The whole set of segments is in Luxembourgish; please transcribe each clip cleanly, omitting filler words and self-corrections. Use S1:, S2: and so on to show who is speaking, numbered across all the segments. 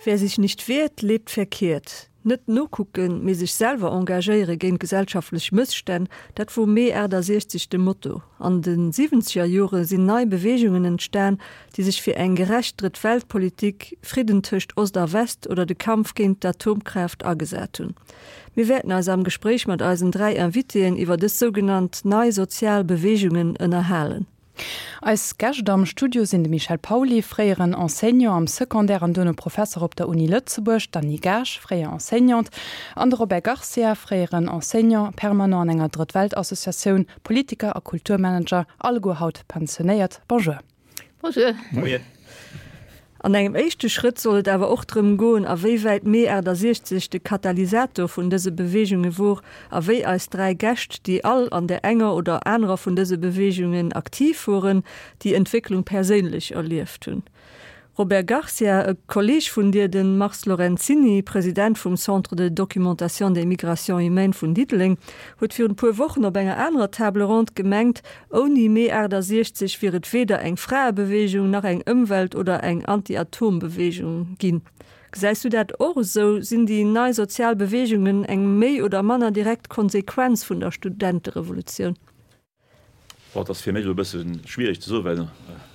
S1: Wer sich nicht wehrt, lebt verkehrt. Net nokucken, mee sech selwer engagéiere géint gesellschaftlech Mësstänn, dat wor Mee 68 de Motto. An de siwwenzeger Jore sinn nei Beweegungen entstan, déi sech fir eng gerecht Drëtt-Welt-Politik, Fridden tëscht Ost a West oder de Kampf géint d'Atomkraaft agesat hunn. Mir wäerten eis am Gespréich mat eisen 3 Invitéen iwwer dës sougenannt nei sozial Beweegungen ënnerhalen.
S2: Eis Gäscht am Studio sinn de Michel Pauly, fréieren Enseignant am Secondaire an duerno Professer op der Uni Lëtzebuerg, d'Annie Gaasch, fréier Enseignante, an de Robert Garcia, fréieren Enseignant permanent an enger Drëtt-Welt-Associatioun, Politiker a Kulturmanager, alleguer haut pensionéiert. Bonjour.
S1: Bonjour. Moien. An engem éischte Schrëtt soll et awer och drëm goen, a wéi wäit Mee 68 de Katalysator vun dëse Beweegunge wor a wéi eis 3 Gäscht, déi all an där enger oder anerer vun dëse Beweegungen aktiv woren, déi Entwécklung perséinlech erlieft hunn. Robert Garcia, e Kolleeg vun dir, de Mars Lorenzini, President vum Centre de documentation des migrations humaines vun Diddeleng, huet virun e puer Wochen op enger anerer Table ronde gemengt, Ouni Mee 68 wier et weder eng Fraebeweegung, nach eng Ëmwelt oder eng Anti-Atom-Beweegung ginn. Gesäis du dat och esou? Sinn déi nei sozial Beweegungen eng méi oder manner direkt Konsequenz vun der Studenterevolutioun?
S3: Bon, et ass fir mech elo e bësse schwiereg ze soen, well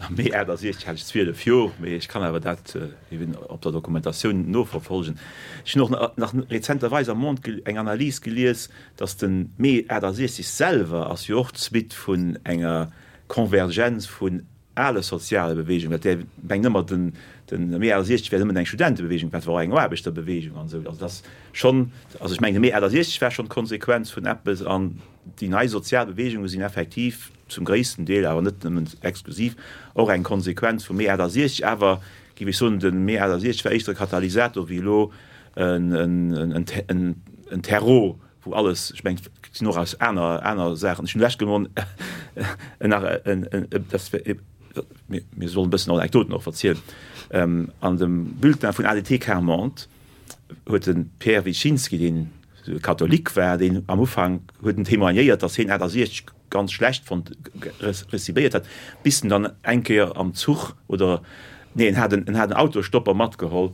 S3: am Mee 68 hat ech 12 Joer, mee ech kann awer dat eben op der Dokumentatioun noverfolgen. Ech hunn och nach rezenterweis am Monde eng Analys gelies, Datt de Mee 68 selwer ass jo och d'Suite vun enger Konvergenz vun ale soziale Beweegungen, dat där mengt ëmmer, den Mee 68 wär nëmmen eng Studentebeweegung, dat war och eng Aarbechterbeweegung an esou. Also dat ass schonn, also ech mengen de Mee 68 war schonn d'Konsequenz vun eppes an déi nei sozial Beweegunge sinn effektiv zum gréissten Deel, awer net nëmmen exklusiv, och eng Konsequenz vum Mee 68. Awer géif ech soen, de Mee 68 war éischter e Katalysator wéi elo en Terreau, wou alles, ech mengen, et sinn och aus aner, aner Saachen, ech hunn lech gemon nach en, dat wär, mir sollen e bëssen Anekdoten och verzielen, an dem Bulletin vun ADT Quart-Monde huet de Pierre Wyszynski, deen Katholik war, deen am Ufank huet en témoignéiert, datt hien 68 ganz schlecht fonnt, recibéiert hat, bis en dann eng Kéier am Zuch oder, nee, en hat en, en hat en Autostopper matgeholl,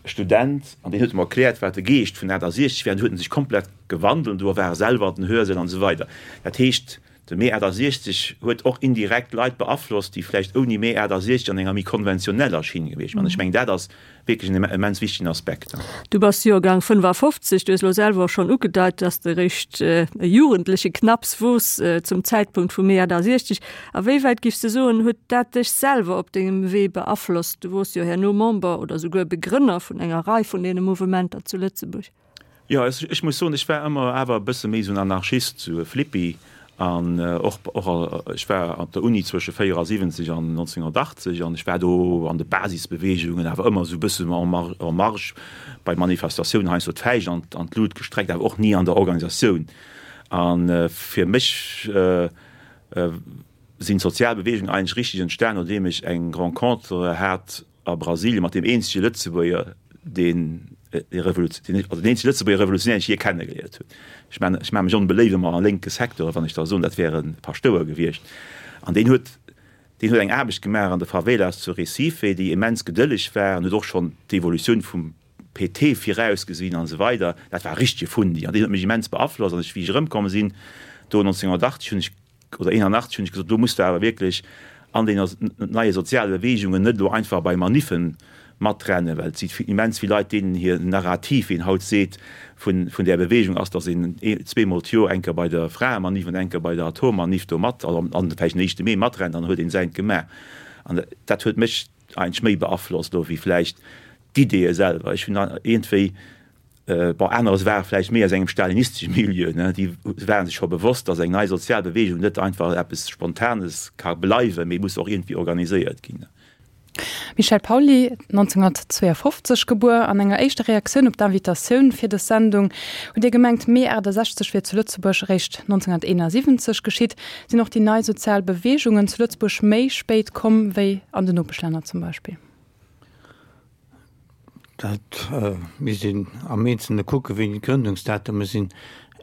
S3: e Student, an deen huet em erkläert, wat de Geescht vun 68 wär, an du huet en sech komplett gewandelt, an du war e selwer an den Hörsäll an esou weider. Dat heescht, de Mee 68 huet och indirekt Leit beaflosst, déi vläicht ouni Mee 68 an enger méi konventioneller Schinn gewiescht wären. Ech mengen, dat ass wierklech en immens wichtegen Aspekt.
S1: Du bass Joergang 55, du hues elo selwer och schonn ugedeit, dass de eréischt e Jugendleche knapps wors zum Zäitpunkt vum Mee 68. A wéi wäit, giffs de soen, huet dat dech selwer op dengem Wee beaflosst? Du wors jo herno Member oder souguer Begrënner vun enger Rei vun deene Mouvementer zu Lëtzebuerg.
S3: Jo, ech muss soen, ech war ëmmer awer e bësse méi esou en Anarchist, esou e Flippi. An och, och, ech war op der Uni zwësche 74 an 1980 an ech war do an de Basisbeweegungen, awer ëmmer esou e bëssen en en marge, bei Manifestatiounen heiansdo d'Fäischt an, an d'Lut gestreckt, awer och ni an der Organisatioun. A fir mech sinn d'sozial Beweegungen eigentlech richteg entstan, nodeem ech eng Rencontre hat a Brasilien mat deem eenzege Lëtzebuerger, deen also deen eenzege Lëtzebuerger Revolutionär, deen ech jee kennegeléiert hunn. Ech man, ech maache mech onbeléift ëmmer am lénke Secteur, wann ech da soen, dat wär e Paschtouer gewiescht. An deen huet, deen huet eng Aarbecht gemaach an de Favelas zu Recife, déi immens gedëlleg war an huet och schonn d'Evolutioun vum PT virausgesinn an esou weider. Dat war e richtege Fundi an deen huet mech immens beaflosst. An ech, wéi ech erëmkomm sinn do 1980, hunn ech oder 81 hunn ech gesot, do muss de awer wierklech an den neie soziale Beweegungen net elo einfach bei Maniffen matrennen, well et si immens vill Leit, deenen hir Narrativ, wéi een haut seet, vun vun där Beweegung ass, datt een zweemol d'Joer eng Kéier bei der Fraemaniff an eng Kéier bei der Atommaniff do mat, also an vläicht den éischte Mee matrennt, dann huet een säint gemaach. An dat huet mech eigentlech méi beaflosst elo wéi vläicht d'Ideeë selwer. Ech hunn iergendwéi Bon, anerer ware vläicht méi aus engem stalinistesche Milieu, ne, déi ware sech scho bewosst, datt eng nei sozial Beweegung net einfach eppes Spontanes ka bleiwen, mee muss och iergendwéi organiséiert ginn.
S2: Michel Pauly, 1952 gebuer. An enger éischter Reaktioun op d'Invitatioun fir dës Sendung hutt Dir gemengt, Mee 68 wier zu Lëtzebuerg eréischt 1971 geschitt. Sinn och déi nei sozial Beweegungen zu Lëtzebuerg méi spéit komm wéi an den Nopeschlänner zum Beispill?
S4: Dat misst een am Eenzelne kucken, wéini d'Grëndungsdatume sinn.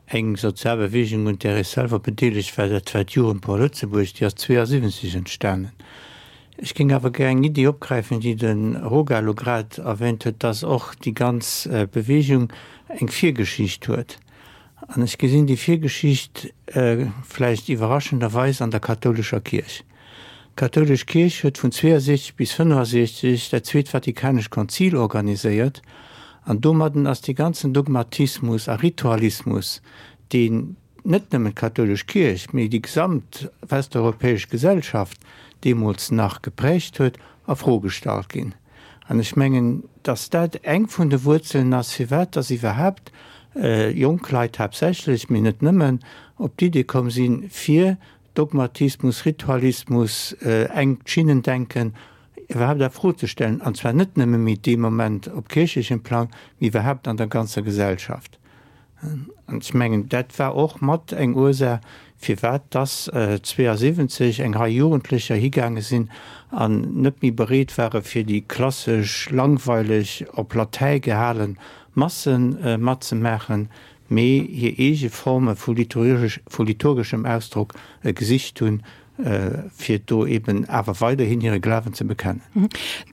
S4: Eng sozial Beweegung, un där ech selwer bedeelegt war, dat war d'Jugendpor Lëtzebuerg, déi ass 72 entstanen. Ech géing awer gär eng Iddi opgräifen, déi de Roga elo grad erwähnt huet, dass och déi ganz Bewegung eng Virgeschicht huet. An ech gesinn déi Virgeschicht vläicht iwwerraschenderweis an der kathoulescher Kierch. D'kathoulesch Kierch huet vun 62 bis 65 dat Zweet Vatikanescht Konzil organiséiert an domadden ass dee ganzen Dogmatismus a Ritualismus, deen net nëmmen d'kathoulesch Kierch, mee déi gesamt westeuropäesch Gesellschaft deemools nach geprägt huet, a Fro gestallt ginn. An ech mengen, dass dat eng vun de Wuerzelen ass, firwat dass iwwerhaapt jonk Leit haaptsächlech, mee net nëmmen, op d'Idee komm sinn, fir Dogmatismus, Ritualismus, engt Schinnendenken iwwerhaapt a Fro ze stellen, an zwar net nëmme méi dee Moment op kierchlechem Plang, mee iwwerhaapt an der ganzer Gesellschaft. An ech mengen, dat war och mat eng Ursaach, firwat dass 72 eng Rei Jugendlecher higaange sinn an net méi bereet ware fir déi klassesch, langweileg, op Latäi gehale Masse matzemaachen, mee hir eege Forme vu liturgeschem Ausdrock gesicht hunn, fir do eben awer weiderhin hire Glawen ze bekennen.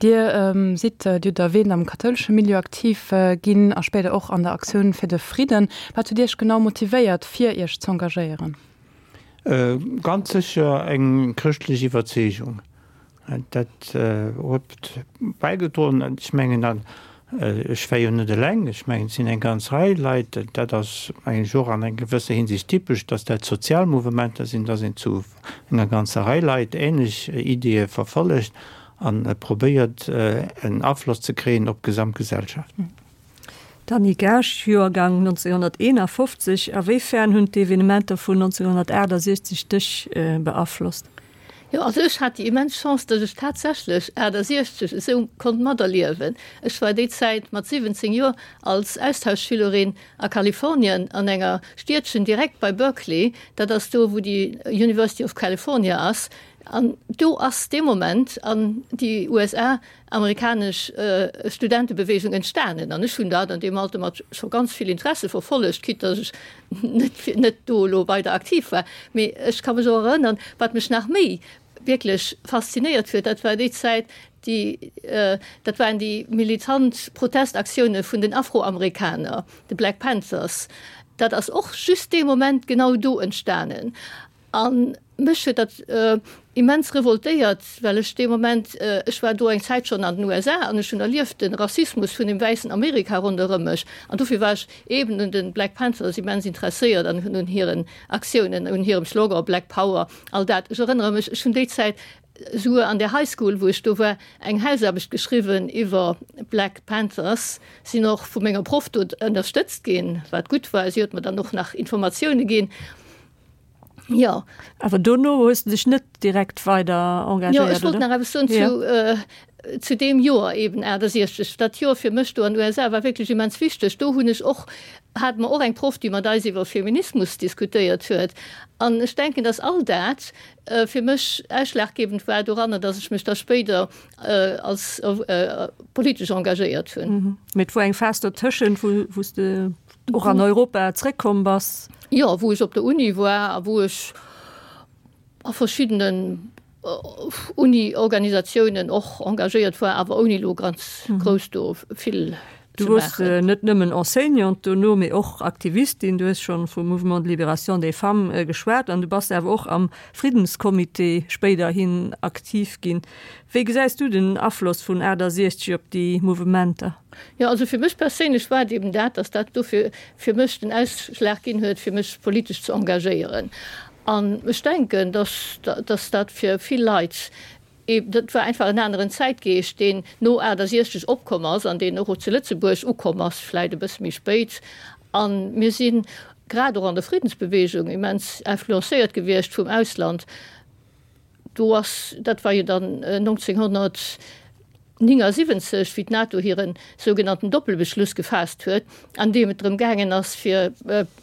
S2: Dir sidd, Dir hutt erwähnt, am kathoulesche Milieu aktiv ginn a spéider och an der Aktioun fir de Fridden. Wat huet Iech genau motivéiert, fir Iech z'engagéieren?
S4: Ganz sécher eng chrëschtlech Iwwerzeegung. Dat huet bäigedroen. Ech mengen, an ech war jo net eleng, ech mengen, et sinn eng ganz Rei Leit, dat ass mengen ech och an enger gewësser Hinsicht typesch, datt dat sozial Mouvementer sinn, datt een zu enger ganzer Rei Leit ähnlech Ideeë verfollegt a probéiert en Afloss ze kréien op d'Gesamtgesellschaft.
S1: D'Annie Gaasch, Joergang 1951, A wéi fern hunn d'Evenementer vun 1968 dech beaflosst?
S5: Jo, also ech hat déi immens Chance, datt ech tatsächlech 68 esou konnt materliewen. Ech war déi Zäit mat 17 Joer als Austauschschülerin a Kalifornien an enger Stiedchen direkt bei Berkeley, dat ass do wou déi University of California ass, an do ass dee Moment an déi USA amerikanesch Studentebewegung entstanen an ech hunn dat an deem Alter mat scho ganz vill Interesse verfollegt, quitte datt ech net net do elo weider aktiv war. Mee ech ka mech och erënnern, wat mech nach méi wierklech faszinéiert huet, dat war déi Zäit, déi dat waren déi militant Protestaktioune vun den Afroamerikaner, de Black Panthers. Dat ass och just dee Moment genau do entstanen. A mech huet dat immens revoltéiert, well ech dee Moment, ech war do eng Zäit schonn an den USA an ech hunn erlieft de Rassismus vun dem wäissen Amerika ronderëm mech. An dofir war ech eeben un de Black Panthers immens interesséiert an un hiren Aktiounen, un hirem Slogan Black Power, all dat. Ech erënnere mech, ech hunn déi Zäit souguer an der High School, wou ech do war, eng Hausaarbecht geschriwwen iwwer Black Panthers, sinn och vu menger Proff do ënnerstëtzt ginn, wat gutt war. Si huet mer dann och nach Informatioune ginn.
S1: Jo. Awer dono hues de dech net direkt weider engagéiert,
S5: Jo, ech wollt nach eppes soen zu, zu deem Joer eben, 68. Dat Joer fir mech do an den USA war wierklech immens wichteg. Do hunn ech och, hate mer och eng Proff, déi mat eis iwwer Feminismus diskutéiert huet. An ech denken, dass all dat fir mech ausschlaggebend war doranner, dass ech mech da spéider als politesch engagéiert hunn.
S1: Mee et wor eng Phas dotëschent, wou, wou s de och an Europa zréckkomm bass?
S5: Jo, wou ech op der Uni war a wou ech a verschiddenen Uni-Organisatiounen och engagéiert war, awer ouni elo ganz grouss do vill
S1: ze maachen. Du wors net nëmmen Enseignante dono, mee och Aktivistin. Du hues schonn vum Mouvement de Libération des Femmes geschwat an du bass awer och am Friddenscomité spéiderhin aktiv ginn. Wéi gesäis du den Afloss vun 68 op déi Mouvementer?
S5: Jo, also fir mech perséinlech war et eben dat, dass dat dofir fir mech den Ausschlag ginn huet, fir mech politesch ze engagéieren. An ech denken, dass, dass dat fir vill Leit eben, dat war einfach en aneren Zäitgeescht, deen no 68 opkomm ass an deen och zu Lëtzebuerg ukomm ass, vläit e bësse méi spéit. A mir si grad och an der Friddensbewegung immens influencéiert gewiescht vum Ausland. Do ass, dat war jo dann 1979, wéi d'NATO hire sougenannten Doppelbeschluss gefaasst huet, an deem et drëm gaangen ass, fir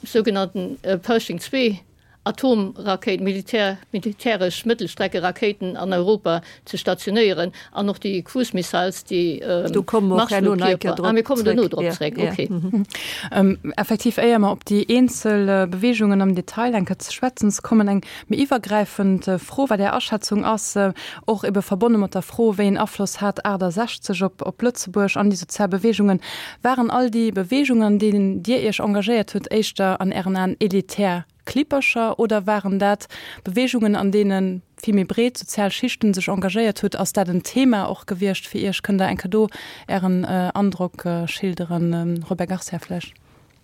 S5: sougenannten Pershing II. Atomrakéiten, Militär, militäresch Mëttelstreckerakéiten an Europa ze stationéieren an och déi Cruise Missiles, déi
S1: Do komme mer och herno nach eng Kéier
S5: drop Ah, mir kommen duerno drop zréck, okay.
S2: Effektiv, éier mer op déi eenzel Beweegungen am Detail eng Kéier ze schwätzen ze kommen, eng méi iwwergräifend Fro, wat Är Aschätzung ass, och ebe verbonne mat der Fro, wéi een Afloss hat 68 op op Lëtzebuerg an déi sozial Beweegungen. Waren all déi Beweegungen, an deenen Dir Iech engagéiert hutt, éischter an Ären Aen elitär Klippercher oder waren dat Beweegungen, an deene vill méi breet sozial Schichten sech engagéiert hutt? Ass dat en Thema och gewiescht fir Iech? Kënnt Der eng Kéier do Ären Androck schilderen, Robert Garcia vläicht?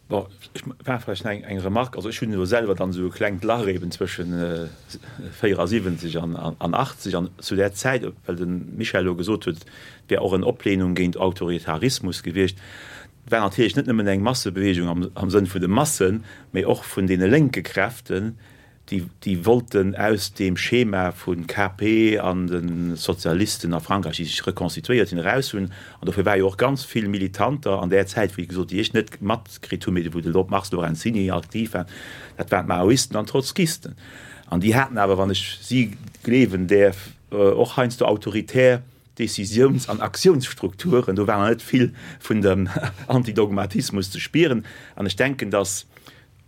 S3: Bon, ech maache vläicht nach eng Remarque. Also ech hunn elo selwer dann esou e klengt Lach eben zwëschen 74 an 80. An zu där Zäit, well de Michel elo gesot huet, et wär och en Oplehnung géint Autoritarismus gewiescht, war natierlech net nëmmen eng Massebewegung am Sënn vun de Massen, mee och vun deene lénke Kräften, déi, déi wollten aus deem Schema vu KP an de Sozialisten a Frankräich, déi sech rekonstituéiert hunn, eraus hunn. An dofir war jo och ganz vill Militanter an där Zäit, wéi gesot, déi ech net matkritt hunn, mee wou de Mars Lorenzini aktiv war, dat waren d'Maoisten an d'Trotzkisten. An déi haten awer, wann ech si gleewen däerf, och heiansdo autoritär Decisiouns an Aktiounsstrukturen. Do war nach net vill vun dem Antidogmatismus ze spieren. An ech denken, datt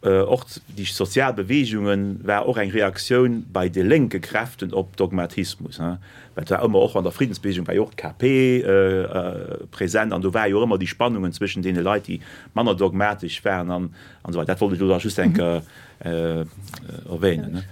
S3: Och déi sozial Beweegungen war och eng Reaktioun bei de lénke Kräften op Dogmatismus. Well et war ëmmer, och an der Friddensbeweegung war jo och d'KP present an do war jo och ëmmer déi Spannungen zwëschen deene Leit, déi manner dogmatesch waren an esou weider. Dat wollt ech elo da just eng Kéier erwähnen.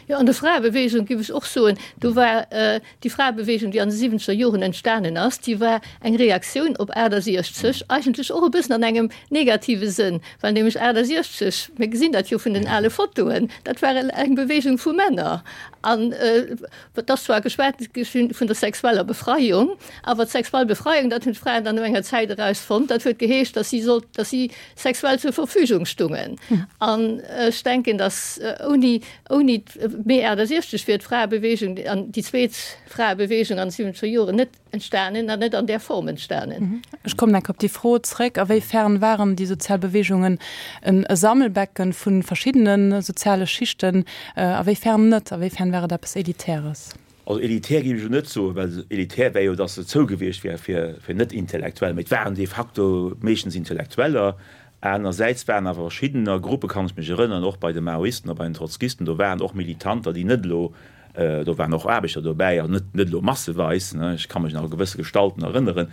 S5: Jo, an der Fraebeweegung géif ech och soen, do war déi Fraebeweegung, déi an de siwwenzeger Joren entstanen ass, déi war eng Reaktioun op 68, eigentlech och e bëssen an engem negative Sënn, well nämlech 68, mir gesinn dat jo vun den ale Fotoen, dat war eng Beweegung vu Männer. An et ass zwar geschwat gi vun der sexueller Befreiung, awer d'sexuell Befreiung, dat hunn d'Fraen dann no enger Zäit erausfonnt, dat huet geheescht, datt si sollt, datt si sexuell zur Verfügung stungen. An ech denken, datt ouni, ouni d'Mee 68 wier d'Fraebewegung an déi zweet Fraebewegung an de siwwenzeger Joren net entstanen an net an där Form entstanen.
S2: Ech kommen enk op déi Fro zréck, A wéi fern waren déi sozial Beweegungen en Sammelbecken vu verschiddene soziale Schichten, a wéi fern net? A wéi fern war et eppes Elitäres?
S3: Also elitär géif ech elo net soen, well elitär wär jo, datt se zou gewiescht wär fir Net-Intellektuell, mee et waren de facto meeschtens Intellektueller. Anersäits waren awer verschiddener Gruppe, kann ech mech erënneren, och bei de Maoisten a bei den Trotzkisten, do waren och Militanter, déi net elo, do waren och Aarbechter dobäi, also net net elo masseweis, ne, ech ka mech nach u gewësse Gestalten erënneren.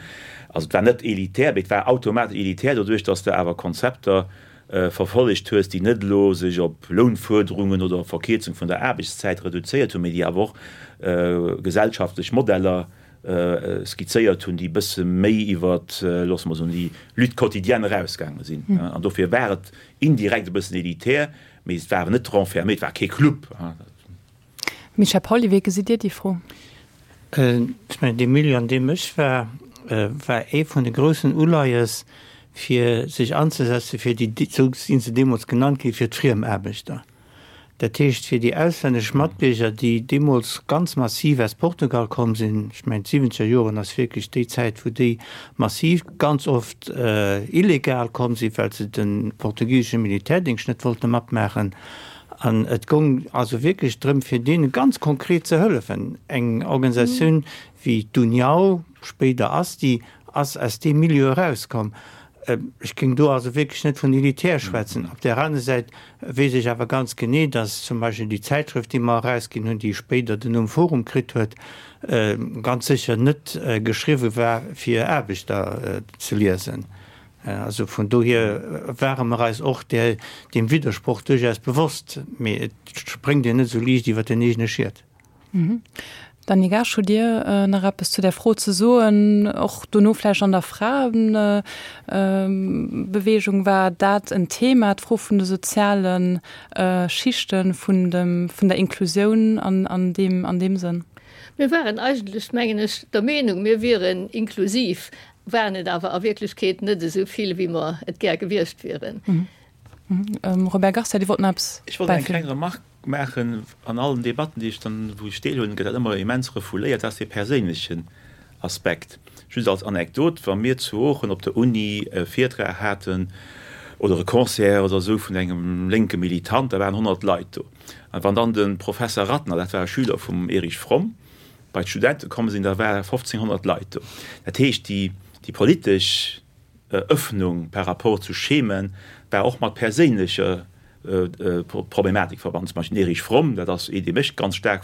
S3: Also et war net elitär, mee et war automatesch elitär doduerch, datt s de awer Konzepter verfollegt hues, déi net elo sech op Lounfuerderungen oder op Verkierzung vun der Aarbechtszäit reduzéiert hunn, mee déi awer och gesellschaftlech Modeller skizzéiert hunn, déi e bësse méi iwwer, loosse mer soen, déi Lutte quotidienne erausgaange sinn. An dofir war et indirekt e bëssen elitär, mee et war awer net renfermé, et war kee Club.
S2: Michel Pauly, wéi gesitt Dir déi Fro?
S4: Ech mengen, dee Milieu, an deem ech war, war ee vun de groussen Uleies, fir sech anzesetze fir déi, esou si se deemools genannt ginn, fir d'Friemaarbechter. Dat heescht, fir déi auslännesch Matbierger, déi deemools ganz massiv aus Portugal komm sinn. Ech mengen, d'siwwenzeger Joren ass wierklech déi Zäit, wou déi massiv, ganz oft illegal komm sinn, well se de portugisesche Militärdéngscht net wollte matmaachen. An et goung also wierklech drëm, fir deene ganz konkret ze hëllefen. Eng Organisatioun wéi d'União, spéider ASTI, ass aus deem Milieu erauskomm. Ech géing do also wierklech net vun elitär schwätzen. Op där aner Säit weess ech awer ganz genee, datt zum Beispill déi Zäitschrëft, déi mer erausginn hunn, déi spéider den Numm Forum kritt huet, ganz sécher net geschriwwe war, fir Aarbechter ze liesen. Also vun dohier ware mer eis och deem Widdersproch duerchaus bewosst, mee et spréngt een net esou liicht iwwer den eegene Schiet.
S2: Dany Gaasch, hutt Dir nach eppes zu där Fro ze soen? Och dono vläicht an der Fraebeweegung war dat en Thema, d'Fro vun de soziale Schichten, vun der Inklusioun an deem Sënn?
S5: Mir waren eigentlech, mengen ech, der Meenung, mir wieren inklusiv. Waren et awer a Wierklechkeet net esou vill, wéi mer et gär gewiescht wieren.
S2: Robert Garcia, Dir wollt nach eppes
S3: Ech wollt eng kleng bäifügen. Remarque maachen. An allen Debatten, déi ech dann, wou ech deelhuelen, gëtt dat ëmmer immens refouléiert, dat ass dee perséinlechen Aspekt. Just als Anekdot, Wa mir zu Oochen op der Uni e Virtrag haten. Oder e Concert oder esou vun engem lénke Militant, da waren 100 Leit do. An wann dann de Professer Ratner, dat war e Schüler vum Erich Fromm, bei d'Studente komm sinn, da ware 1500 Leit do. Dat heescht, déi, déi politesch Öffnung par rapport zu Schemen war och mat perséinlecher Problematik verbannen. Zum Beispill den Erich Fromm, dat ass ee, dee mech ganz staark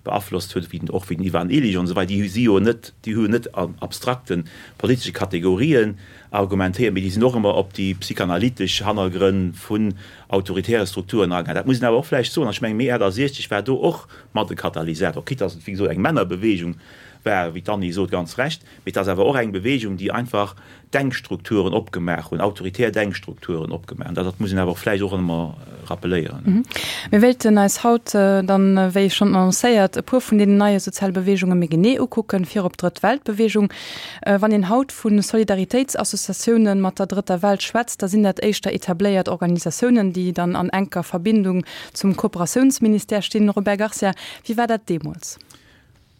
S3: beaflosst huet, wéi och wéi den Ivan Illich an esou weider, déi si jo net, déi hu jo net an abstrakte politesche Kategorien argumentéiert, mee déi sinn och ëmmer op déi psychanalytesch Hannergrënn vun autoritäre Strukturen agaangen. Dat muss een awer och vläicht soen, an ech mengen, Mee 68 war do och mat e Katalysator, quitte dass et, wéi gesot, eng Männerbewegung war, wéi d'Annie sot, ganz recht, mee et ass awer och eng Bewegung, déi einfach Denkstrukturen opgemaach hunn, autoritär Denkstrukturen opgemaach hunn. Dat muss een awer och vläicht och ëmmer rappeléieren.
S2: Mir wéilten eis haut dann, wéi schonn annoncéiert, e puer vun deenen neie soziale Beweegunge méi genee ukucken, virop d'Drëtt Welt-Beweegung. Wann een haut vu Solidaritéitsassociatiounen mat der Drëtter Welt schwätzt, da sinn dat éischter etabléiert Organisatiounen, déi dann an enker Verbindung zum Kooperatiounsministère stinn. Robert Garcia, wéi war dat deemools?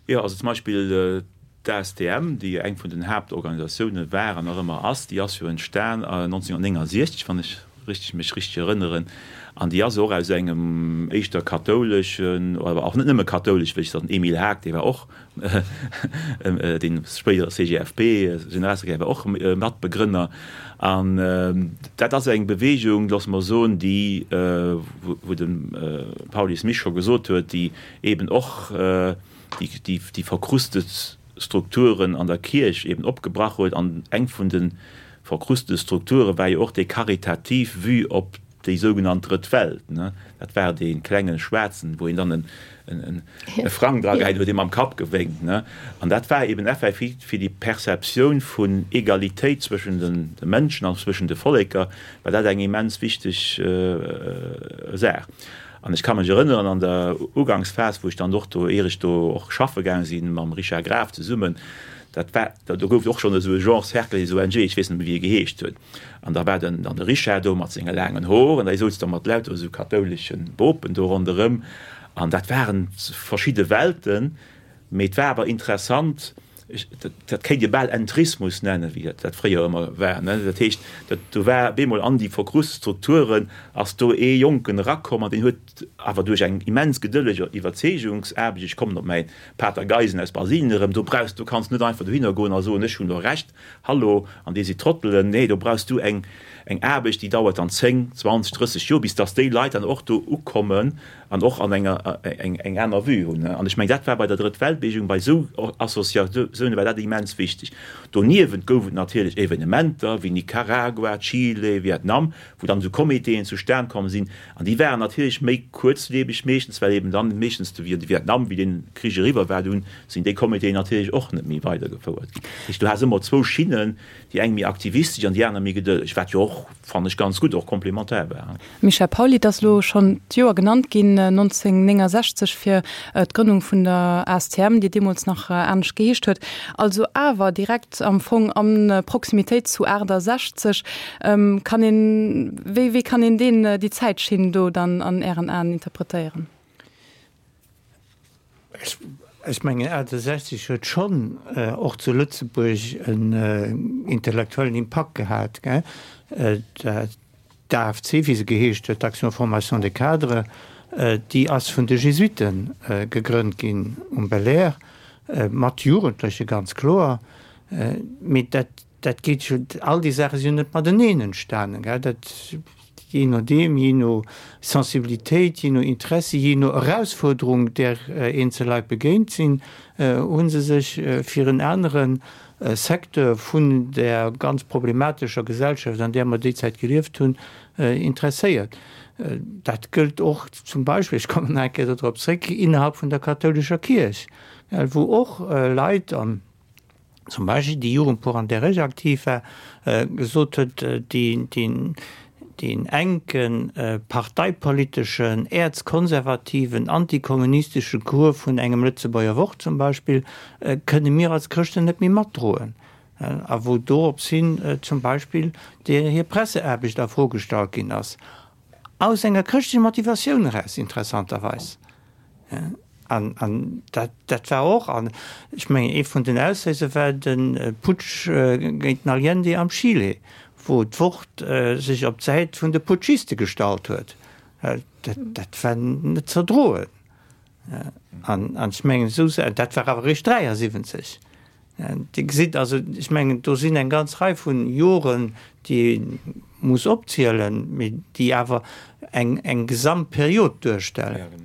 S3: Jo, also zum Beispill d'ASTM, déi jo eng vun den Haaptorganisatioune war an nach ëmmer ass, déi ass jo entstan 1969, wann ech richteg mech richteg erënneren, an déi ass och aus engem éischter kathouleschen, awer och net nëmme kathoulesch, wéi ech den Emile Haag, dee war och dee spéidere CGFP-Generalsekretär, war och Matbegrënner. An dat ass eng Beweegung, loosse mer soen, déi, wou de Pauly Smith scho gesot huet, déi eben och déi verkrustet Strukturen an der Kierch eben opgebrach huet. An eng vun de verkruste Strukture war jo och déi karitativ Vue op déi sougenannt Drëtt Welt. Dat war dee klenge Schwaarzen, wou een dann e Frang dragehäit huet, dee mam Kapp gewénkt. An dat war eben effektiv fir déi Perceptioun vun Egalitéit zwëschen de Mënschen an zwëschen de Volleker, war dat eng immens wichteg Saach. An ech ka mech erënneren, an der Ugangsphas, wou ech dann och do, ier ech do och schaffe gaang sinn, mam Richard Graf zesummen, dat war, do gouf et och schonn esou e Genre Cercle des ONG, ech weess net méi, wéi e geheescht huet. An da war den, dann de Richard do mat senge laangen Hoer an da souz da mat lauter esou kathoulesche Bopen do ronderëm. An dat waren verschidde Welten. Mee et war awer interessant, dat kéint ee bal Entrismus nennen, wéi dat fréier ëmmer war. Dat heescht, do war op eemol an déi verkrust Strukturen ass do ee Jonken erakomm an deen huet awer duerch eng immens gedëlleg Iwwerzeegungsaarbecht, ech kommen op mäi Pater Geisen aus Brasilien erëm, do brauchs, do kanns net einfach dohinner goen a soen, ech hunn do Recht, hallo, an dir sidd Trottelen. Nee, do brauchs du eng Aarbecht, déi dauert dann 10, 20, 30 Joer, bis datt déi Leit dann och do ukommen an och an enger eng aner Vue hunn. An ech mengen, dat war bei der Drëtt-Welt-Bewegung, bei esou Associatioune war dat immens wichteg. Doniewent gouf et natierlech Evenementer wéi Nicaragua, Chile, Vietnam, wou dann esou Comitéen zustan komm sinn. An déi waren natierlech méi kuerzlieweg meeschtens, well eben dann meeschtens de Vietnam, wéi dee Krich eriwwer war, dunn sinn déi Comitéen natierlech och net méi weidergefouert ginn. Dat heescht, du has ëmmer zwou Schinnen, déi eng méi aktivistesch an déi aner méi gedëlleg, wat jo och, fannen ech, ganz gutt och komplementär war.
S2: Michel Pauly, Et ass elo schonn d'Joer genannt ginn, 1969, fir d'Grënnung vun der ASTM, déi deemools nach anescht geheescht huet, also awer direkt am Fong a Proximitéit zu 68. Kann een, wéi, wéi kann een deen, déi Zäitschinn do dann an Ären Aen interpretéieren?
S4: Ech mengen 68 huet schonn och zu Lëtzebuerg en intellektuellen Impakt gehat. D'AFC, wéi se geheescht huet, d'Action Formation des Cadres, déi ass vun de Jesuite gegrënnt ginn um Belair, mat Jugendleche ganz kloer. Mee dat Dat geet jo, all déi Saache sinn jo net mateneen entstanen, gell. Dat, jee nodeem, jee no Sensibilitéit, jee no Interessi, jee no Erausfuerderung, där eenzel Leit begéint sinn, hu se sech fir en anere Secteur vun där ganz problematescher Gesellschaft, an där mer déi Zäit gelieft hunn, interesséiert. Dat gëllt och zum Beispill, ech kommen nach eng Kéier dodrop zréck, innerhalb vun der kathoulescher Kierch, wou och Leit, an zum Beispill déi Jugendpor an där ech aktiv war, gesot huet, deen enke parteipoliteschen, äerzkonservativen, antikommunistesche Cours vun engem Lëtzebuerger Wort zum Beispill kënne mir als Chrëschten net méi matdroen. A wou dorops hin zum Beispill hir Presseaarbecht a Fro gestallt ginn ass, aus enger chrëschtlecher Motivatioun eraus interessanterweis. An, an dat, dat war och, an ech mengen, ee vun den Ausléiser war de Putsch géint den Allende am Chile, wou d'Wort sech op d'Säit vun de Putschiste gestallt huet. Dat, dat war net ze erdroen. An, an ech mengen, esou, dat war awer eréischt 73. Dir gesitt also, ech mengen, do sinn eng ganz Rei vu Joren, déi ee muss opzielen, mee déi awer eng, eng Gesamtperiod duerstellen.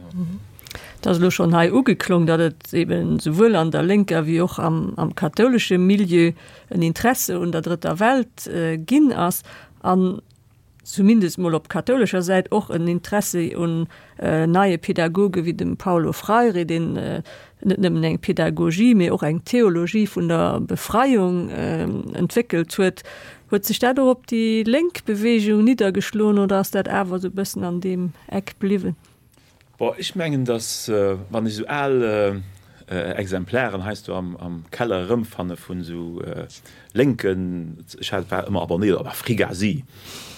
S1: Et ass elo schonn hei ugeklong, datt et eben souwuel an der lénker wéi och am, am kathoulesche Milieu en Interesse un der Drëtter Welt ginn ass. An zumindest mol op kathoulescher Säit, och en Interessi un neie Pädagoge wéi dem Paulo Freire, deen net nëmmen eng Pädagogie, mee och eng Theologie vun der Befreiung entwéckelt huet. Huet sech dat och op déi lénk Beweegung niddergeschloen oder ass dat awer esou e bëssen an deem Eck bliwwen?
S3: Bon, ech mengen, datt wann ech esou al Exemplaren heiansdo am Keller erëmfanne vun esou lénken, ech hat war ëmmer abonnéiert op Afrigasi,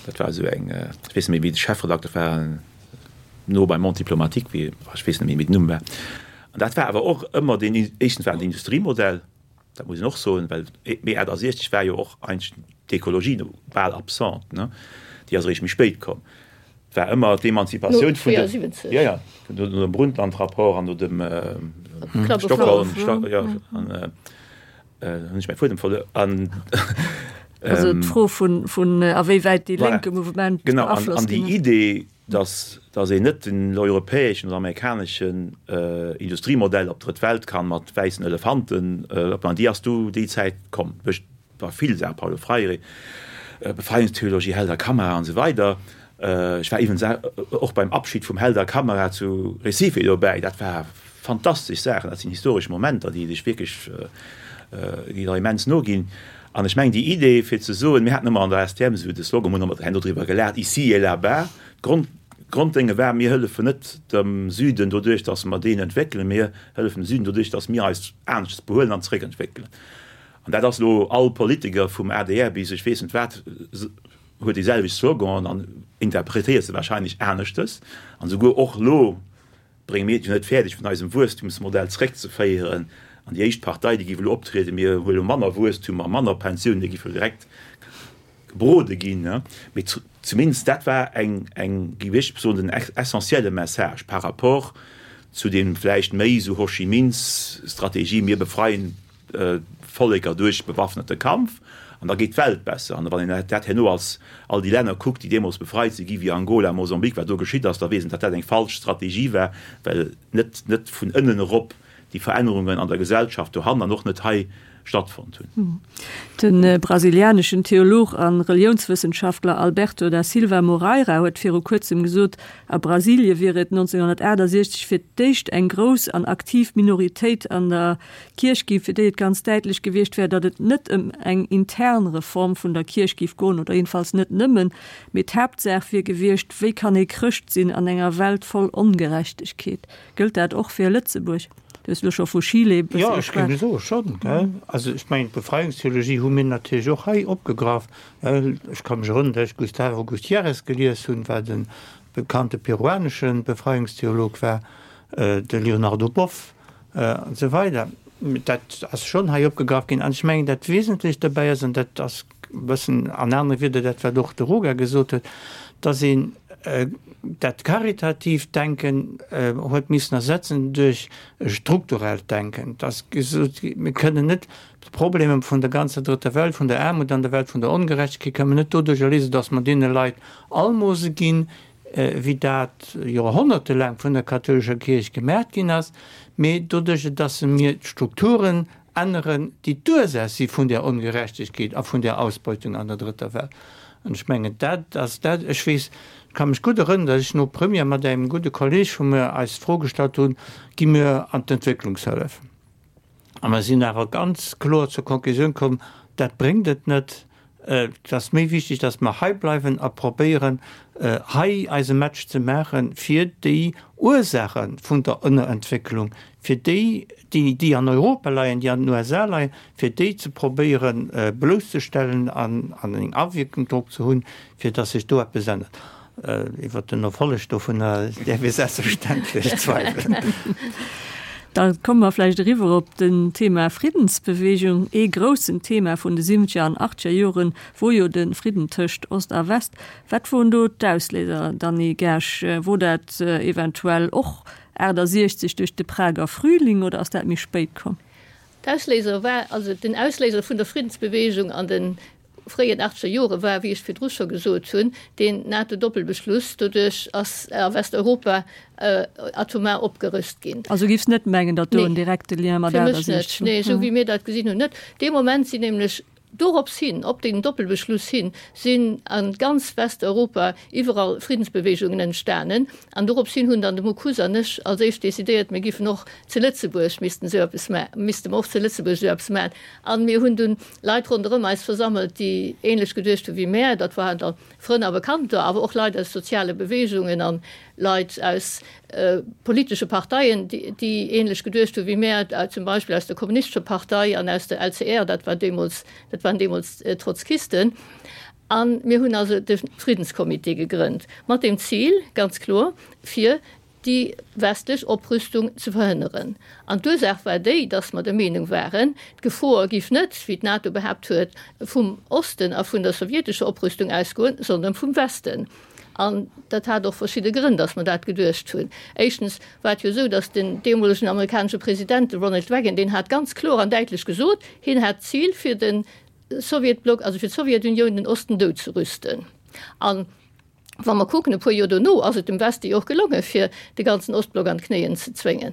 S3: dat war esou eng, ech weess net méi wéi de Chefredakter war, no beim Monde diplomatique, wéi, ech weess net méi wéi den Numm war. An dat war awer och ëmmer deen, éischtens war et en Industriemodell, dat muss een och soen, well Mee 68 war jo och eigentlech d'Ekologie bal absent, ne, déi ass eréischt méi spéit komm. Et war ëmmer d'Emanzipatioun vun de, jo, jo, no dem Brundtland-Rapport an no dem Stockholm, jo, an hunn ech mäi Fuedem verluer, an.
S1: Also d'Fro vun, vun a wéi wäit dee lénke Mouvement
S3: beaflosst ginn ass. Genau, an déi Idee, dass, dass een net den europäeschen oder amerikaneschen Industriemodell op d'Drëtt Welt kann mat wäissen Elefanten opbauen, déi ass du déi Zäit komm duerch bei vill Saachen, Paulo Freire, Befreiungstheologie, Helder Câmara an esou weider. Ech war iwwens och beim Abschied vum Helder Câmara zu Recife dobäi, dat war fantastesch Saachen, dat sinn historesch Momenter, déi dech wierklech, déi der immens noginn. An ech mengen, déi Idee fir ze soen, mir haten ëmmer an der STM esou de Slogan, hunn ëmmer herno driwwer gelaacht, Ici et là-bas, d'Grond, d'Gronddénge war, mir hëllefen net dem Süden doduerch, datt mer deen entwéckelen, mir hëllefen dem Süden doduerch, datt mir eis aneschters behuelen an zeréckentwéckelen. An dat ass elo all Politiker vum adr bis ech weess net wat, huet déi selwecht Sloganen an interpretéiert se wahrscheinlech aneschtes. An esouguer och elo brénge mir et jo net fäerdeg vun eisem Wuesstumsmodell zréckzeféieren an déi éischt Partei déi géif elo optrieden, mir huele manner Wuesstum a manner Pensiounen, déi géif jo direkt gebrode ginn. Mee zumindest dat war eng, eng, géif ech soen, den essentielle Message par rapport zu deem vläicht méi esou Ho Chi Minh-Strategie, mir befreien Volleker duerch bewaffnete Kampf an da geet d'Welt besser. An wann een dat herno als all déi Länner kuckt, déi deemools befreit si gi wéi Angola, Mosambik, wat do geschitt ass, da weess een, datt dat eng falsch Strategie war, well net net vun ënnen erop déi Verännerungen an der Gesellschaft dohannen an och net hei stattfonnt hunn.
S1: De brasilianeschen Theolog a Reliounswëssenschaftler Alberto da Silva Moreira huet viru kuerzem gesot, a Brasilie wier et 1968 fir d'éischt eng grouss an aktiv Minoritéit an der Kierch ginn, fir déi et ganz däitlech gewiescht wär, datt et net ëm eng intern Reform vun der Kierch géif goen, oder jedenfalls net nëmmen, mee d'Haaptsaach wier gewiescht, wéi kann ee Chrëscht sinn an enger Welt voll Ongerechtegkeet? Gëllt dat och fir Lëtzebuerg? Du hues elo scho vu Chile e
S4: bësse geschwat. Jo, ech géif soe schonn, gell. Also ech mengen, d'Befreiungstheologie hu mir natierlech och hei opgegraff. Ech ka mech erënneren, datt ech Gustavo Gutiérrez gelies hunn, wat e bekannte peruanesche Befreiungstheolog war, de Leonardo Boff, An esou weider. Dat ass schonn hei opgegraff ginn. An ech mengen, dat Wesentlecht dobäi ass, an dat ass e bëssen an anere Wieder dat, wat och de Roger gesot huet, dass een dat karitatiivt Denken huet missen ersetzen duerch e strukturellt Denken, dass gesot gi, mir kënnen net d'Problemer vun der ganzer Drëtter Welt, vun der Aarmut an der Welt, vun der Ongerechtegkeet, kënnen mer net doduercher léisen, dass mer deene Leit Almose ginn, wéi dat joerhonnertelaang vun der kathoulescher Kierch gemaacht ginn ass, mee doduerch dass se mir d'Strukturen änneren, déi d'Ursaach si vun där Ongerechtegkeet a vun där Ausbeutung an der Drëtter Welt. An ech mengen, dat ass dat. Ech weess, ech ka mech gutt erënneren, dass ech no Première mat engem gudde Kolleeg vu mir eis d'Fro gestallt hunn, Gi mir an d'Entwécklungshëllef? A mer sinn awer ganz kloer zur Konklusioun komm, dat bréngt et net. Et ass méi wichteg, dass mer hei bleiwen a probéieren, hei eise Match ze maachen, fir déi Ursaache vun der Ënnerentwécklung, fir déi, déi an Europa leien, déi an den USA leien, fir déi ze probéieren blousszestellen an eng Awierkung drop ze hunn, fir dass sech do eppes ännert. Iwwert den Erfolleg dovunner däerf ee selbstverständlech zweiwelen.
S1: Da komme mer vläicht eriwwer op den Thema Friddensbewegung. Ee groussen Thema vun de siwwenzeger an achtzeger Joren wor jo de Fridden tëscht Ost a West. Wat woren do d'Ausléiser, Dany Kersch? Wor dat eventuell och 68 duerch de Prager Frühling oder ass dat méi spéit komm?
S5: D'Ausléiser war, also den Ausléiser vun der Friddensbewegung an de fréien achtzeger Jore war, wéi ech virdru scho gesot hunn, deen NATO-Doppelbeschluss. Doduerch ass a Westeuropa atomar opgerüst ginn.
S1: Also giffs net mengen, datt do en direkte Lien mat
S5: 68 war? Fir mech net, nee, esou wéi mir dat gesinn hunn, net. Dee Moment sinn nämlech Dorops hin, op deen Doppelbeschluss hin, sinn a ganz Westeuropa iwwerall Friddensbewegungen entstanen. An dorops hin hunn dann de Mockus an ech als éischt decidéiert, mir giffen och zu Lëtzebuerg missten esou eppes ma, misste mer och zu Lëtzebuerg esou eppes maachen. A mir hunn dunn Leit ronderëm eis versammelt, déi ähnlech geduecht hu wéi mär. Dat waren da Frënn a Bekannter, awer och Leit aus soziale Bewegungen an Leit aus politesche Parteien, déi ähnlech geduecht hu wéi mär, zum Beispill aus der Kommunistescher Partei an aus der LCR, dat war deemools, dat waren deemools Trotzkisten. A mir hunn also de Friddenscomité gegrënnt, mat dem Zil, ganz kloer, fir déi westlech Oprüstung ze verhënneren. An d'Ursaach war déi, datt mer der Meenung waren, d'Gefor giff net, wéi d'NATO behaapt huet, vum Osten a vun der sowjetescher Oprüstung ausgoen, sondern vum Westen. An dat hat och verschidde Grënn, datt mer dat geduecht hunn. Éischtens war et jo esou, datt den deemolegen amerikanesche President, de Ronald Reagan, deen hat ganz kloer an däitlech gesot, hien hat d'Zil fir de Sowjetblock, also fir d'Sowjetunioun, den Osten dout ze rüsten. An wa mer kucken, e puer Joer dono ass et dem Weste jo och gelongen, fir de ganzen Ostblock an d'Knéien ze zwéngen.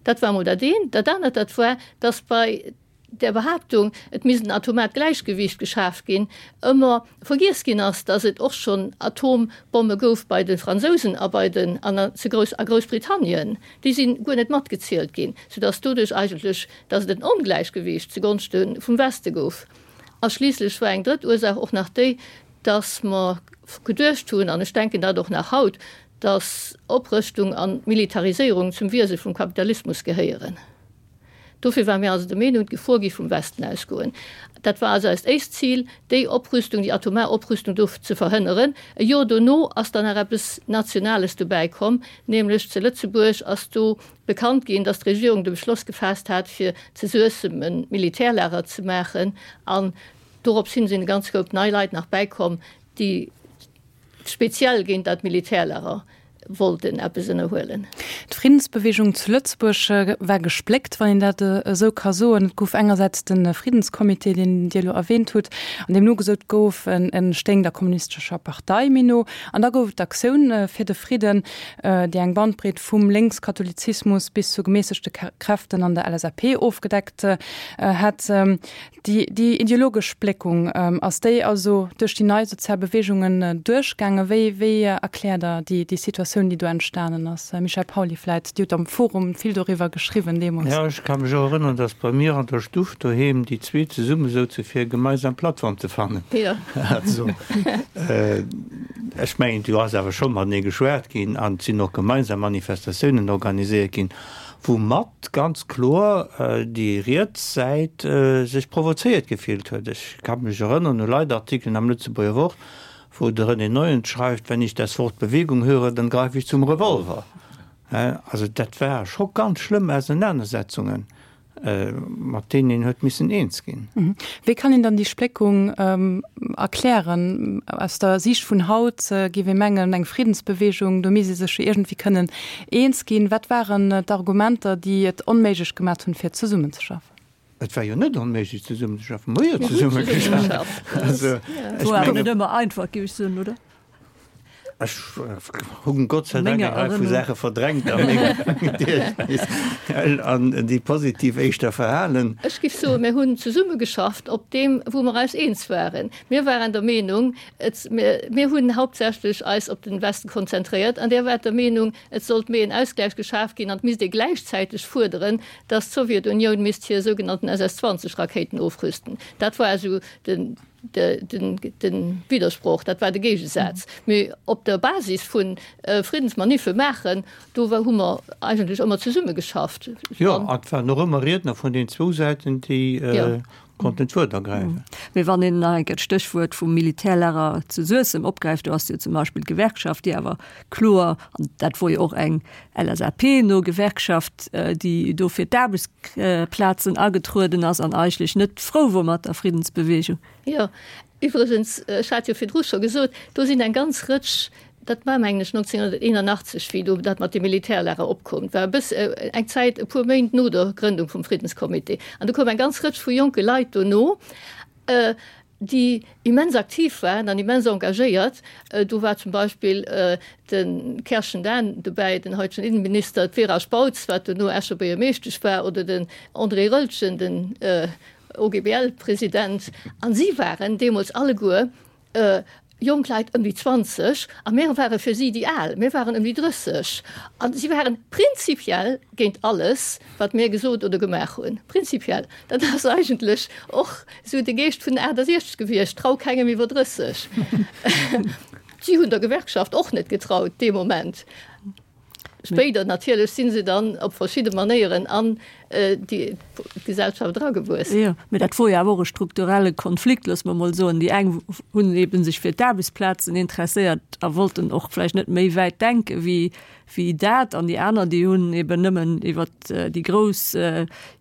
S5: Dat war emol dat eent. Dat anert, dat war, datt bei där Behaaptung, et misst en atomaart Gläichgewiicht geschaf ginn, ëmmer vergiess ginn ass, datt et och schonn Atombomme gouf bei de Fransousen a bei den an zu Grouss a Groussbritannien. Déi si guer net matgezielt ginn, soudatt doduerch eigentlech, datt et en Ongläichgewiicht zugonschte vum Weste gouf. A schliisslech war eng drëtt Ursaach och nach déi, datt mer geduecht hunn, an ech denken dat och nach haut, datt Oprëschtung an Militariséierung zum Wiese vum Kapitalismus gehéieren. Dofir ware mir also der Meenung, d'Gefor géif vum Westen ausgoen. Dat war also eist éischt Zil, déi Oprüstung, déi atomar Oprüstung do ze verhënneren. E Jor dono ass dann nach eppes Nationales dobäi komm, nämlech zu Lëtzebuerg ass do bekannt ginn, datt d'Regierung de Beschloss gefaasst hat, fir zu Suessem e Militärlager ze maachen. An dorops hin sinn e ganz Koup nei Leit nach bäikomm, déi speziell géint dat Militärlager wollten eppes ënnerhuelen.
S2: D'Friddensbewegung zu Lëtzebuerg war gespléckt, wann een dat esou ka soen. Et gouf engersäits de Friddenscomité, deen Dir elo erwähnt hutt, an deem nogesot gouf, en stéing der Kommunistescher Partei méi no. An da gouf et d'Aktioun fir de Fridden, déi eng Bandbreet vum Lénkskatholizismus bis zu gemässegte Kräften an der LSAP ofgedeckt hätt. Déi ideologesch Spléckung, ass déi also duerch déi nei sozial Beweegungen duerchgaangen? Wéi wéi erkläert Der déi déi Situatioun, déi do entstanen ass? Michel Pauly vläit, Dir hutt am Forum vill doriwwer geschriwwen deemools.
S4: Jo, ech ka mech och erënneren, datt bei mir an der Stuff doheem déi zwee zesumme souze fir e gemeinsam Plattform ze fannen. Also, ech mengen, do ass awer scho matenee geschwat ginn an et sinn och gemeinsam Manifestatiounen organiséiert ginn. Woumat ganz kloer déi riets Säit sech provozéiert gefillt huet. Ech ka mech erënneren u Leitartikelen am Lëtzebuerger Wort, wou de René Neuens schreift, Wenn ich das Wort Bewegung höre, dann greife ich zum Revolver. Also dat war scho ganz schlëmm Ausenanersetzungen. Mat deenen een huet missen eens ginn.
S2: Wéi kann een dann déi Spléckung erklären? Aus der Siicht vun haut géif ee mengen, eng Friddensbewegung, do misst ee sech jo iergendwéi kënnen eens ginn. Wat waren d'Argumenter, déi et onméiglech gemaat hunn, fir zesummenzeschaffen?
S4: Et war jo net onméiglech zesummenzeschaffen. Mer hu jo zesummegeschafft.
S1: Also, ech mengen. War net ëmmer einfach, géif ech soen, oder?
S4: Ech hunn Gott sei Dank eng Rei vu Saache verdrängt a mengem Gediechtnis an déi positiv éischter verhalen.
S5: Ech géif soen, mir hunn zesummegeschafft op deem, wou mer eis eens waren. Mir waren der Meenung, et, mir hunn hauptsächlech eis op den Westen konzentréiert an Dir waart der Meenung, et sollt méi en Ausgläich geschaf ginn an et misst ee gläichzäiteg fuerderen, dass d'Sowjetunioun misst hir sougenannten SS 20 Rakéiten ofrüsten. Dat war esou den. De Widdersproch, dat war de Géigesaz. Mee op der Basis vu Friddensmaniffe maachen, do hu mer eigentlech ëmmer zesummegeschafft.
S4: Jo, an et waren och ëmmer Riedner vun den zwou Säiten, déi. Konnten d'Wuert ergräifen.
S1: Mee wann een nach eng Kéier d'Stéchwuert vum Militärlager zu Suessem opgräift, do ass jo zum Beispill d'Gewerkschaft, déi awer kloer, an dat wor jo och eng LSAP-no Gewerkschaft, déi do fir d'Aarbechtsplazen agetrueden ass an eigentlech net frou wor mat der Friddensbewegung.
S5: Jo, iwwregens, ech hat jo virdru scho gesot, do sinn eng ganz Rëtsch Dat war, mengen ech, 1981, wéi do dat mat de Militärlager opkoum. Et war e bëss eng Zäit, e puer Méint no der Grëndung vum Friddenscomité. An do koum eng ganz Rëtsch vu jonke Leit dono, déi immens aktiv waren an immens engagéiert. Do war zum Beispill de Kerschen Dan dobäi, den haitegen Innenminister, d'Vera Spautz, wat dono Escher Buergermeeschtesch war, oder den André Roeltgen, den OGBL-President. A si waren deemools alleguer jonk Leit ëm déi 20, a mir ware fir si déi Al, mir waren ëm déi 30, a si waren prinzipiell géint alles, wat mir gesot oder gemaach hunn. Prinzipiell. Dat ass eigentlech och esou de Geescht vun den 68 gewiescht, Trau kengem iwwer 30. Si hunn der Gewerkschaft och net getraut dee Moment. Spéider natierlech si se dann op verschidde Manéieren an déi Gesellschaft eragewuess.
S1: Jo, mee dat wor jo awer och e strukturelle Konflikt, loosse mer emol soen. Déi eng hunn eebe sech fir d'Aarbechtsplazen interesséiert a wollten och vläicht net méi wäit denke wéi, wéi dat, an déi aner, déi hunn eeben nëmmen iwwer déi grouss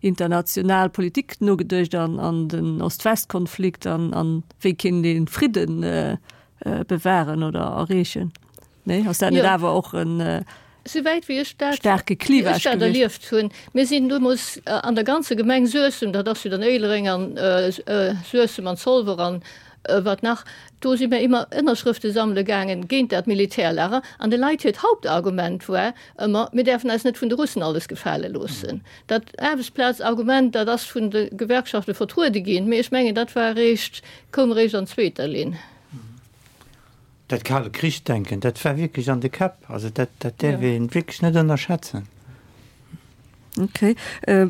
S1: international Politik nogeduecht an, an den Ost-West-Konflikt an, an wéi kéint ee Fridden bewahren oder erreechen. Nee, ass dat net awer och en
S5: Souwäit wéi ech dat,
S1: staarke Clivage
S5: ech dat erlieft hunn. Mir sinn deemools an der ganzer Gemeng Suessem, dat ass jo dann Éilereng an Suessem an Zolwer an wat nach, do si mir ëmmer Ënnerschrëfte sammele gaangen géint dat Militärlager. An de Leit hiert Hauptargument war ëmmer, mir däerfen eis net vun de Russen alles gefale loossen. Dat Aarbechtsplazargument, dat ass vun de Gewerkschafte vertruede ginn, mee ech mengen, dat war eréischt, koum eréischt an zweeter Linn.
S4: Dat kale Krich-Denken, dat war wierklech an de Käpp. Also dat, dat däerf ee wierklech net ënnerschätzen.
S1: Okay.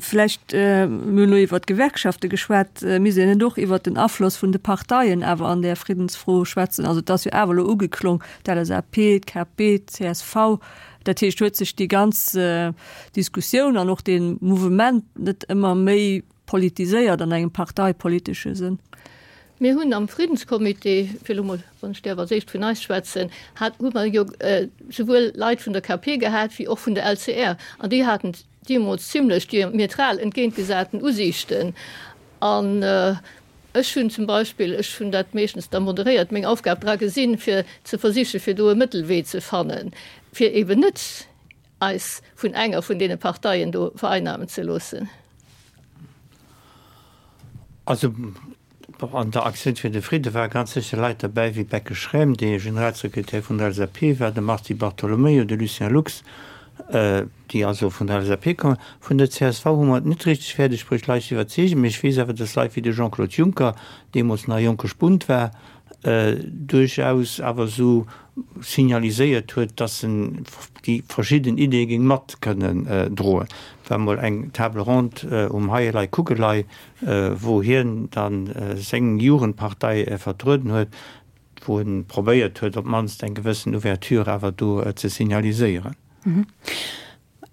S1: Vläicht, mir hunn elo iwwert d'Gewerkschafte geschwat, misst een net och iwwert den Afloss vun de Parteien awer an där Friddensfro schwätzen? Also et ass jo awer elo ugeklong, d'LSAP, d'KP, d'CSV. Dat heescht, huet sech déi ganz Diskussioun an och dee Mouvement net ëmmer méi politiséiert an engem parteipolitesche Sënn?
S5: Mir hunn am Friddenscomité, fir elo mol, wann ech däerf als éischt vun eis schwätzen, hat, hu mer jo souwuel Leit vun der KP gehat wéi och vun der LCR, an déi haten deemools zimlech diametral entgéintgesaten Usiichten. An ech hunn zum Beispill, ech hunn dat meeschtens da moderéiert, meng Aufgab dra gesinn, fir ze versichen, fir do e Mëttelwee ze fannen, fir eeben net eis vun enger vun deene Parteien do vereinnamen ze loossen.
S4: Also an der Aktioun fir de Fridde ware ganz sécher Leit derbäi wéi Becke Schräm, dee Generalsekretär vun der LSAP war, de Mars Di Bartolomeo, de Lucien Lux, déi also vun der LSAP kommen. Vun der csv hu mer et net richteg fäerdeg bruecht, Leit ze iwwerzeegen, mee ech weess awer, datt Leit wéi de Jean-Claude Juncker, deemools nach e jonke Spunt war, duerchaus awer esou signaliséiert huet, dass en déi verschidden Ideeë géing mat kënnen droen. Et war emol eng Table ronde um Heielei Kuckelei, wou hien da seng Jugendpartei vertrueden huet, wou e probéiert huet, op d'mannst eng gewëssen Ouverture awer do ze signaliséieren.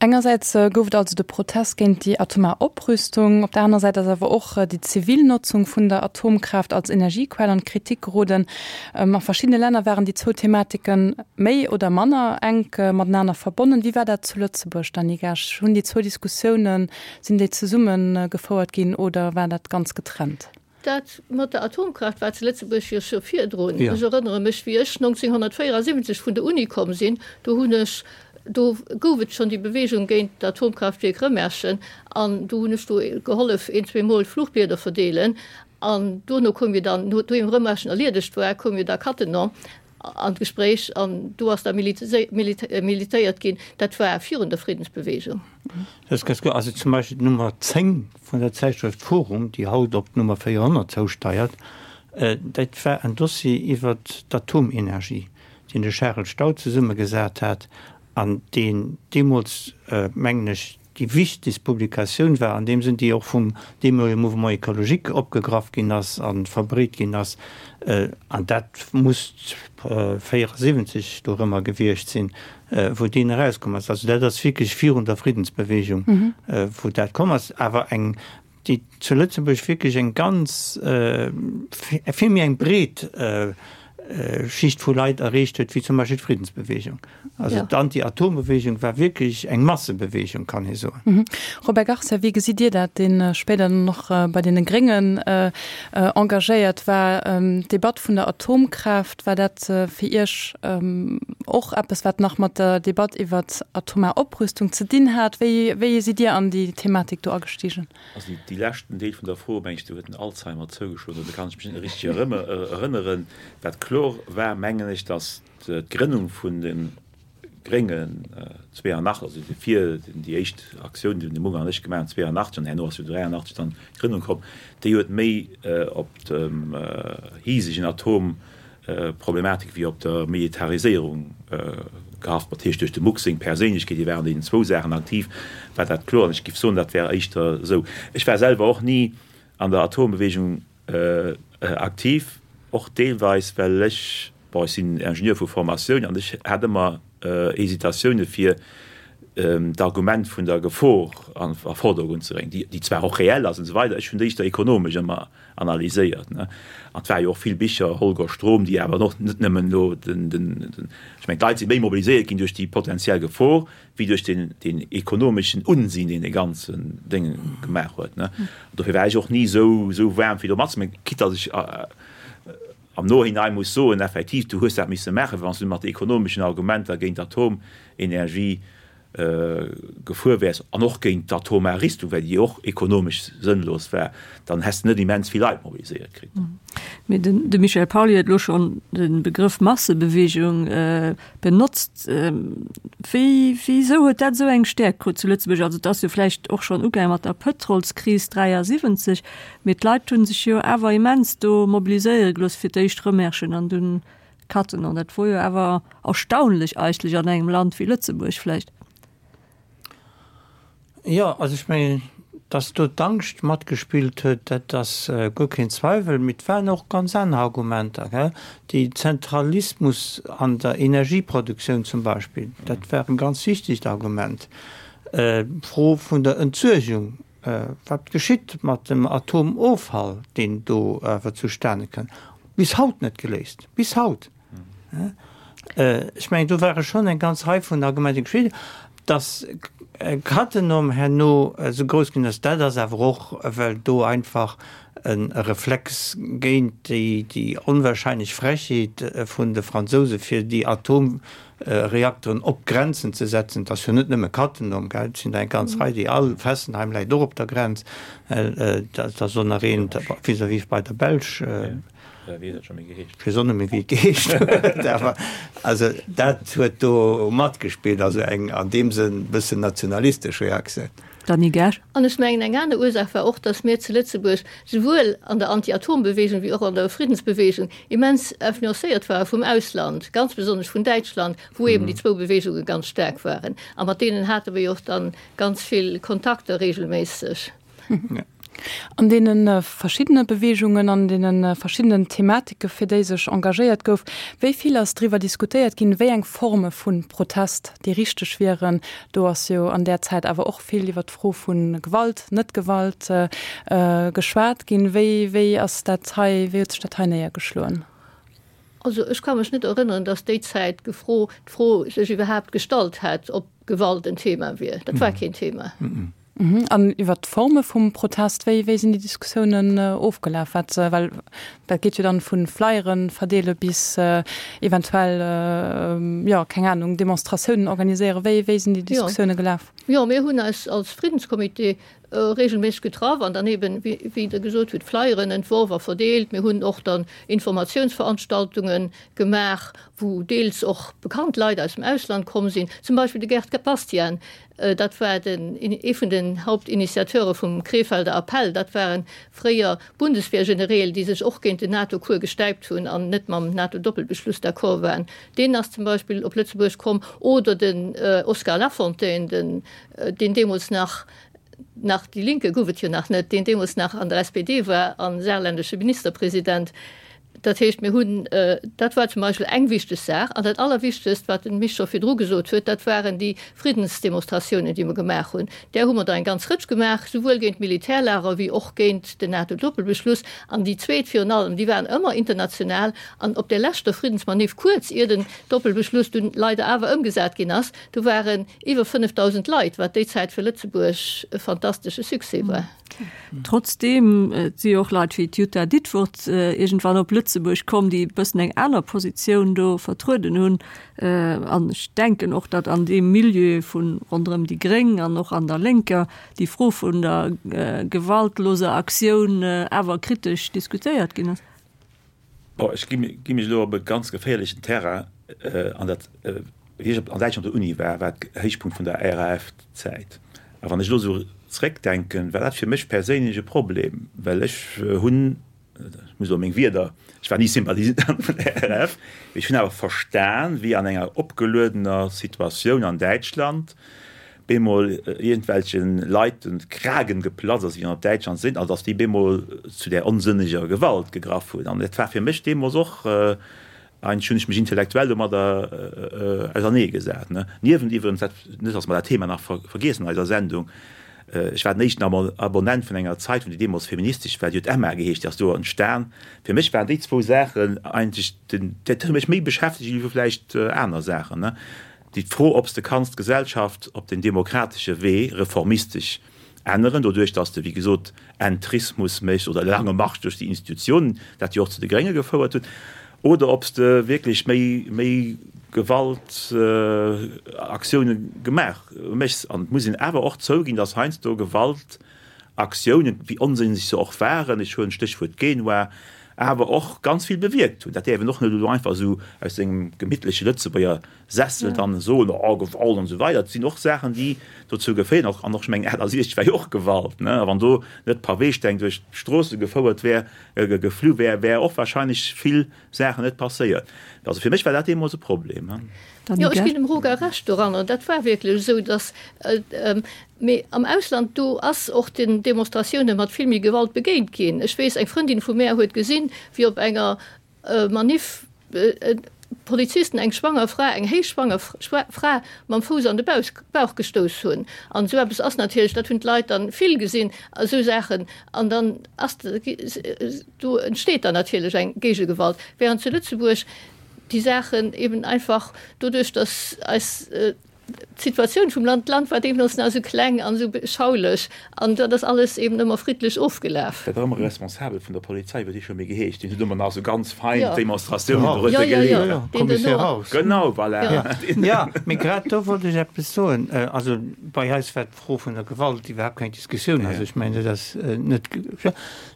S2: Engersäits gouf et also de Protest géint déi atomar Oprüstung, op der anerer Säit ass awer och déi zivil Notzung vun der Atomkraaft als Energiequell an d'Kritik geroden. A verschiddene Länner waren déi zwou Thematike méi oder manner enk matenaner verbonnen. Wéi war dat zu Lëtzebuerg, Dany Gasch? Hunn déi zwou Diskussiounen, sinn déi zesumme gefouert ginn oder war dat ganz getrennt?
S5: Dat mat der Atomkraaft war zu Lëtzebuerg jo scho virdrun. Ech erënnere mech, wéi ech 1974 vun der Uni komm sinn, do hunn ech, do gouf et schonn déi Bewegung géint d'Atomkraaftwierk Rëmerschen an do hunn ech do gehollef een, zweemol Fluchblieder verdeelen. An dono koum jo dann, nodeem Rëmerschen erliedegt war, koum jo da Cattenom an d'Gespréich an do ass da militéiert ginn. Dat war virun der Friddensbewegung.
S4: Dat ass ganz gutt. Also zum Beispill d'Nummer 10 vun der Zäitschrëft Forum, déi haut op d'Nummer 400 zousteiert, dat war en Dossier iwwer d'Atomenergie, deen de Charel Staudt zesummegesat hat an deen deemools, mengen ech, déi wichtegst Publikatioun war an deem Sënn, déi och vum deemolege Mouvement écologique opgegraff ginn ass a verbreet ginn ass, an dat muss 74 dorëmmer gewiescht sinn, wou deen erauskomm ass. Also dat ass wierklech virun der Friddensbewegung, wou dat komm ass. Awer eng. déi zu Lëtzebuerg wierklech eng ganz, vill méi eng breet Schicht vu Leit erreecht huet wéi zum Beispill d'Friddensbewegung. Also d'Anti-Atom-Bewegung war wierklech eng Massebewegung, kann ee soen.
S2: Robert Garcia, wéi gesitt Dir dat, dee spéider dann och bei deene Gréngen engagéiert war? D'Debatt vun der Atomkraaft, war dat fir Iech och eppes, wat nach mat der Debatt iwwer atomar Oprüstung ze dinn hat? Wéi, wéi sidd Dir an déi Thematik do agestigen?
S3: Also déi leschten Deel vun der Fro, meng ech, do huet den Alzheimer zougeschloen, do kann ech mech net richteg erënneren. Wat kloer war, mengen ech, datt d'Grënnung vun de Gréngen 82, also fir déi éischt Aktioun, déi de Munger an ech gemaach hunn 82, an herno ass jo 83 dann d'Grënnung komm, déi huet méi op dem hisegen Atomproblematik wéi op der Militariséierung gehaft. Dat heescht duerch de Muck seng Perséinlechkeet, hie war an deenen zwou Saachen aktiv, war dat kloer. An ech géif soen, dat wär éischter esou. Ech war selwer och ni an der Atombewegung Aktiv, och deelweis well ech, bon ech sinn Ingenieur vu Formatioun an ech hat ëmmer Hesitatioune fir d'Argument vun der Gefor a Vordergrund ze bréngen, déi zwar och reell ass an esou weider, ech hunn déi éischter ekonomesch ëmmer analyséiert. An et ware jo och vill Bicher, Holger Strom, déi awer och net nëmmen elo den, ech mengen d'Leit si méi mobiliséiert ginn duerch déi potenziell Gefor, wéi duerch deen, deen ekonomeschen Unsinn, deen dee ganzen Déng gemaach huet, ne. Dofir war ech och ni esou, esou waarm fir do matzemaachen, quitte datt ech am Nohinein muss soen, effektiv, du hues dat misse maachen, wann s du mat de ekonomeschen Argumenter géint d'Atomenergie gefuer wäers an och géint d'atomar Rüstung, well déi och ekonomesch sënnlos war, dann häss de net immens vill Leit mobiliséiert kritt.
S1: Mee den, de Michel Pauly huet elo schonn de Begrëff Massebewegung Benotzt. Wéi, wéisou huet dat esou eng Stäerkt krut zu Lëtzebuerg? Also et ass jo vläicht och schonn ugaange mat der Pëtrolskris 73, mee d'Leit hu sech jo awer immens do mobiliséiere gelooss, fir d'éischt Rëmerschen an dunn Cattenom. Dat wor jo awer erstaunlech eigentlech an engem Land wéi Lëtzebuerg vläicht.
S4: Jo, also ech mengen, datt do d'Angscht matgespillt huet, dat ass guer keen Zweiwel. Mee et waren och ganz aner Argumenter, gell. Déi Zentralismus an der Energieproduktioun zum Beispill, dat war e ganz wichtegt Argument. D'Fro vun der Entsuergung, wat geschitt mat dem Atomoffall, deen do awer zustane kënn, bis haut net geléist, bis haut. Ech mengen, do ware schonn eng ganz Rei vun Argumenten geschitt. Dass Cattenom herno esou grouss ginn ass, dat ass awer och, well do einfach e Reflex géint déi onwahrscheinlech Frechheet vun de Fransouse fir déi Atomreakteren op d'Grenzen ze setzen, et ass jo net nëmme Cattenom, gell, et sinn der eng ganz Rei, déi all, Fessenheim läit och op der Grenz, dat ass och nach eent vis-à-vis bei der Belsch. Ech weess och net méi wéi et geheescht huet, awer also dat huet do matgespillt, also eng an deem Sënn bëssen nationalistesch Reaktioun.
S1: Dany Gersch.
S5: An ech mengen eng aner Ursaach war och, datt mir zu Lëtzebuerg souwuel an der Anti-Atom-Bewegung wéi och an der Friddensbewegung immens influencéiert ware vum Ausland, ganz besonnesch vun Däitschland, wou eben déi zwou Bewegunge ganz staark waren. A mat deenen hate mir jo och dann ganz vill Kontakter regelméisseg.
S2: An deene verschiddene Beweegungen, an deene verschiddenen Thematike fir déi sech engagéiert gouf, wéi vill ass driwwer diskutéiert ginn, wéi eng Forme vu Protest déi richteg wieren? Do ass jo an där Zäit awer och vill iwwer d'Fro vu Gewalt, Net-Gewalt geschwat ginn. Wéi, wéi ass dat hei, wéi huet sech dat hei néiergeschloen?
S5: Also ech ka mech net erënneren, datt déi Zäit d'Fro sech iwwerhaapt gestallt hätt, ob Gewalt en Thema wier. Dat war keen Thema.
S2: An iwwert d'Forme vum Protest, wéi wéi sinn déi Diskussiounen ofgelaf? Wat, well dat geet jo dann vu Flyere verdeele bis eventuell, jo, keng Anung, Demonstratiounen organiséieren. Wéi wéi sinn déi Diskussioune gelaf?
S5: Jo, mir hunn eis als Friddenscomité regelméisseg getraff an dann eben, wéi wéi Der gesot hutt, Flyeren entworf a verdeelt. Mir hunn och dann Informatiounsveranstaltunge gemaach, wou deels och bekannt Leit aus dem Ausland komm sinn, zum Beispill de Gerd Bastian, Dat war den, ee vun den Hauptinitiateure vum Krefelder Appell. Dat ware fréier Bundeswehrgenereel, déi sech och géint den NATO-Cours gestäipt hunn an net mam NATO-Doppelbeschluss d'accord waren. Deen ass zum Beispill op Lëtzebuerg komm. Oder den Oskar Lafontaine, den, deen deemools nach, nach Die Linke gouf et jo nach net, deen deemools nach an der SPD war a saarländesche Ministerpresident. Dat heescht, mir hunn, dat war zum Beispill eng wichteg Saach. An dat Allerwichtegst, wat den Misch scho virdru gesot huet, dat waren déi Friddensdemonstratiounen, déi mer gemaach hunn. Där hu mer der eng ganz Rëtsch gemaach, souwuel géint d'Militärlager wéi och géint den NATO-Doppelbeschluss. An déi zweet virun allem, déi waren ëmmer international. An op där leschter Friddensmanif, kuerz ier den Doppelbeschluss dunn leider awer ëmgesat ginn ass, do waren iwwer 5.000 Leit, wat déi Zäit fir Lëtzebuerg e fantastesche Succès war.
S1: Trotzdeem, et si jo och Leit wéi d'Jutta Ditfurth iergendwann op Lëtzebuerg komm, déi e bëssen eng aner Positioun do vertrueden hunn. An ech denken och, datt an deem Milieu vu ronderëm déi Gréng an och an der Lénker déi Fro vun der gewaltloser Aktioun awer kritesch diskutéiert ginn ass.
S3: Bon, ech gi mech elo op e ganz geféierlechen Terrain an dat, wéi ech an Däitschland op der Uni war, war Héichpunkt vun der RAF-Zäit. A wann ech elo esou zréckdenken, war dat fir mech perséinlech e Problem, well ech hunn, ech muss elo meng Wierder, ech war ni Sympathisant vun der RAF, mee ech hunn awer verstan, wéi an enger opgeluedener Situatioun an Däitschland bemol iergendwelche Leit de Kragen geplatzt ass, wéi an op Däitschland sinn, also datt déi bemol zu där onsënneger Gewalt gegraff hunn. An et war fir mech deemools och, eigentlech hunn ech mech intellektuell domadder auserneegesat. Niewent iwwerens, dat, net datt mer dat Thema nach vergiessen an eiser Sendung, ech war den éischten Abonnent vun enger Zeitung, déi deemools feministesch war, déi huet Emma geheescht, déi ass do entstan. Fir mech waren déi zwou Saachen eigentlech den, dat huet mech méi beschäftegt wéi vläicht aner Saachen. Déi d'Fro, ob s de kanns d'Gesellschaft op den demokratesche Wee reformistesch änneren, doduerch datt s de, wéi gesot, Entrismus méchs oder lange Marsch duerch déi Institutionen, dat jo och zu de Grénge gefouert huet, oder ob s de wierklech méi, méi Gewaltaktioune gemaach méchs. An et muss een awer och zouginn, datt heiansdo Gewaltaktiounen, wéi onsënneg se och waren, ech huelen d'Stéchwuert Genua, awer och ganz vill bewierkt hunn. Dat däerf een och net elo einfach esou aus sengem gemittleche Lëtzebuerger Sessel dann soen, oh Gewalt an esou weider. Et sinn och Saachen, déi dozou geféieren, och, an och, ech mengen 68 war jo och Gewalt, ne, a wann do net Paweesteng duerch d'Stroosse gefouert wär, geflu wär, wär och wahrscheinlech vill Saachen net passéiert. Also fir mech war dat deemools e Problem.
S5: Jo, ech ginn dem Roger Recht doranner. Dat war wierklech esou, datt, mee am Ausland, do ass och den Demonstratioune mat vill méi Gewalt begéint ginn. Ech weess, eng Frëndin vu mär huet gesinn, wéi op enger Maniff Polizisten eng schwanger Fra, eng héichschwanger Fra mam Fouss an de Bauch gestouss hunn. An esou eppes ass natierlech, dat hunn d'Leit dann vill gesinn, esou Saachen. An dann ass, do entsteet dann natierlech eng Géigegewalt. Während zu Lëtzebuerg déi Saachen eben einfach doduerch, datt eis D'Situatioun vum Land, d'Land war deemools nach esou kleng an esou beschaulech an dat ass alles eben ëmmer friddlech ofgelaf.
S3: Dat war ëmmer e Responsabel vun der Polizei, wéi dee scho méi geheescht, deen huet ëmmer nach esou ganz fein d'Demonstratiounen
S4: dorënner geleet.
S3: Commissaire Raus. Genau, voilà.
S4: Jo, mee grad do wollt ech eppes soen. Also bei eis war d'Fro vun der Gewalt iwwerhaapt keng Diskussioun. Also ech mengen, dat ass net,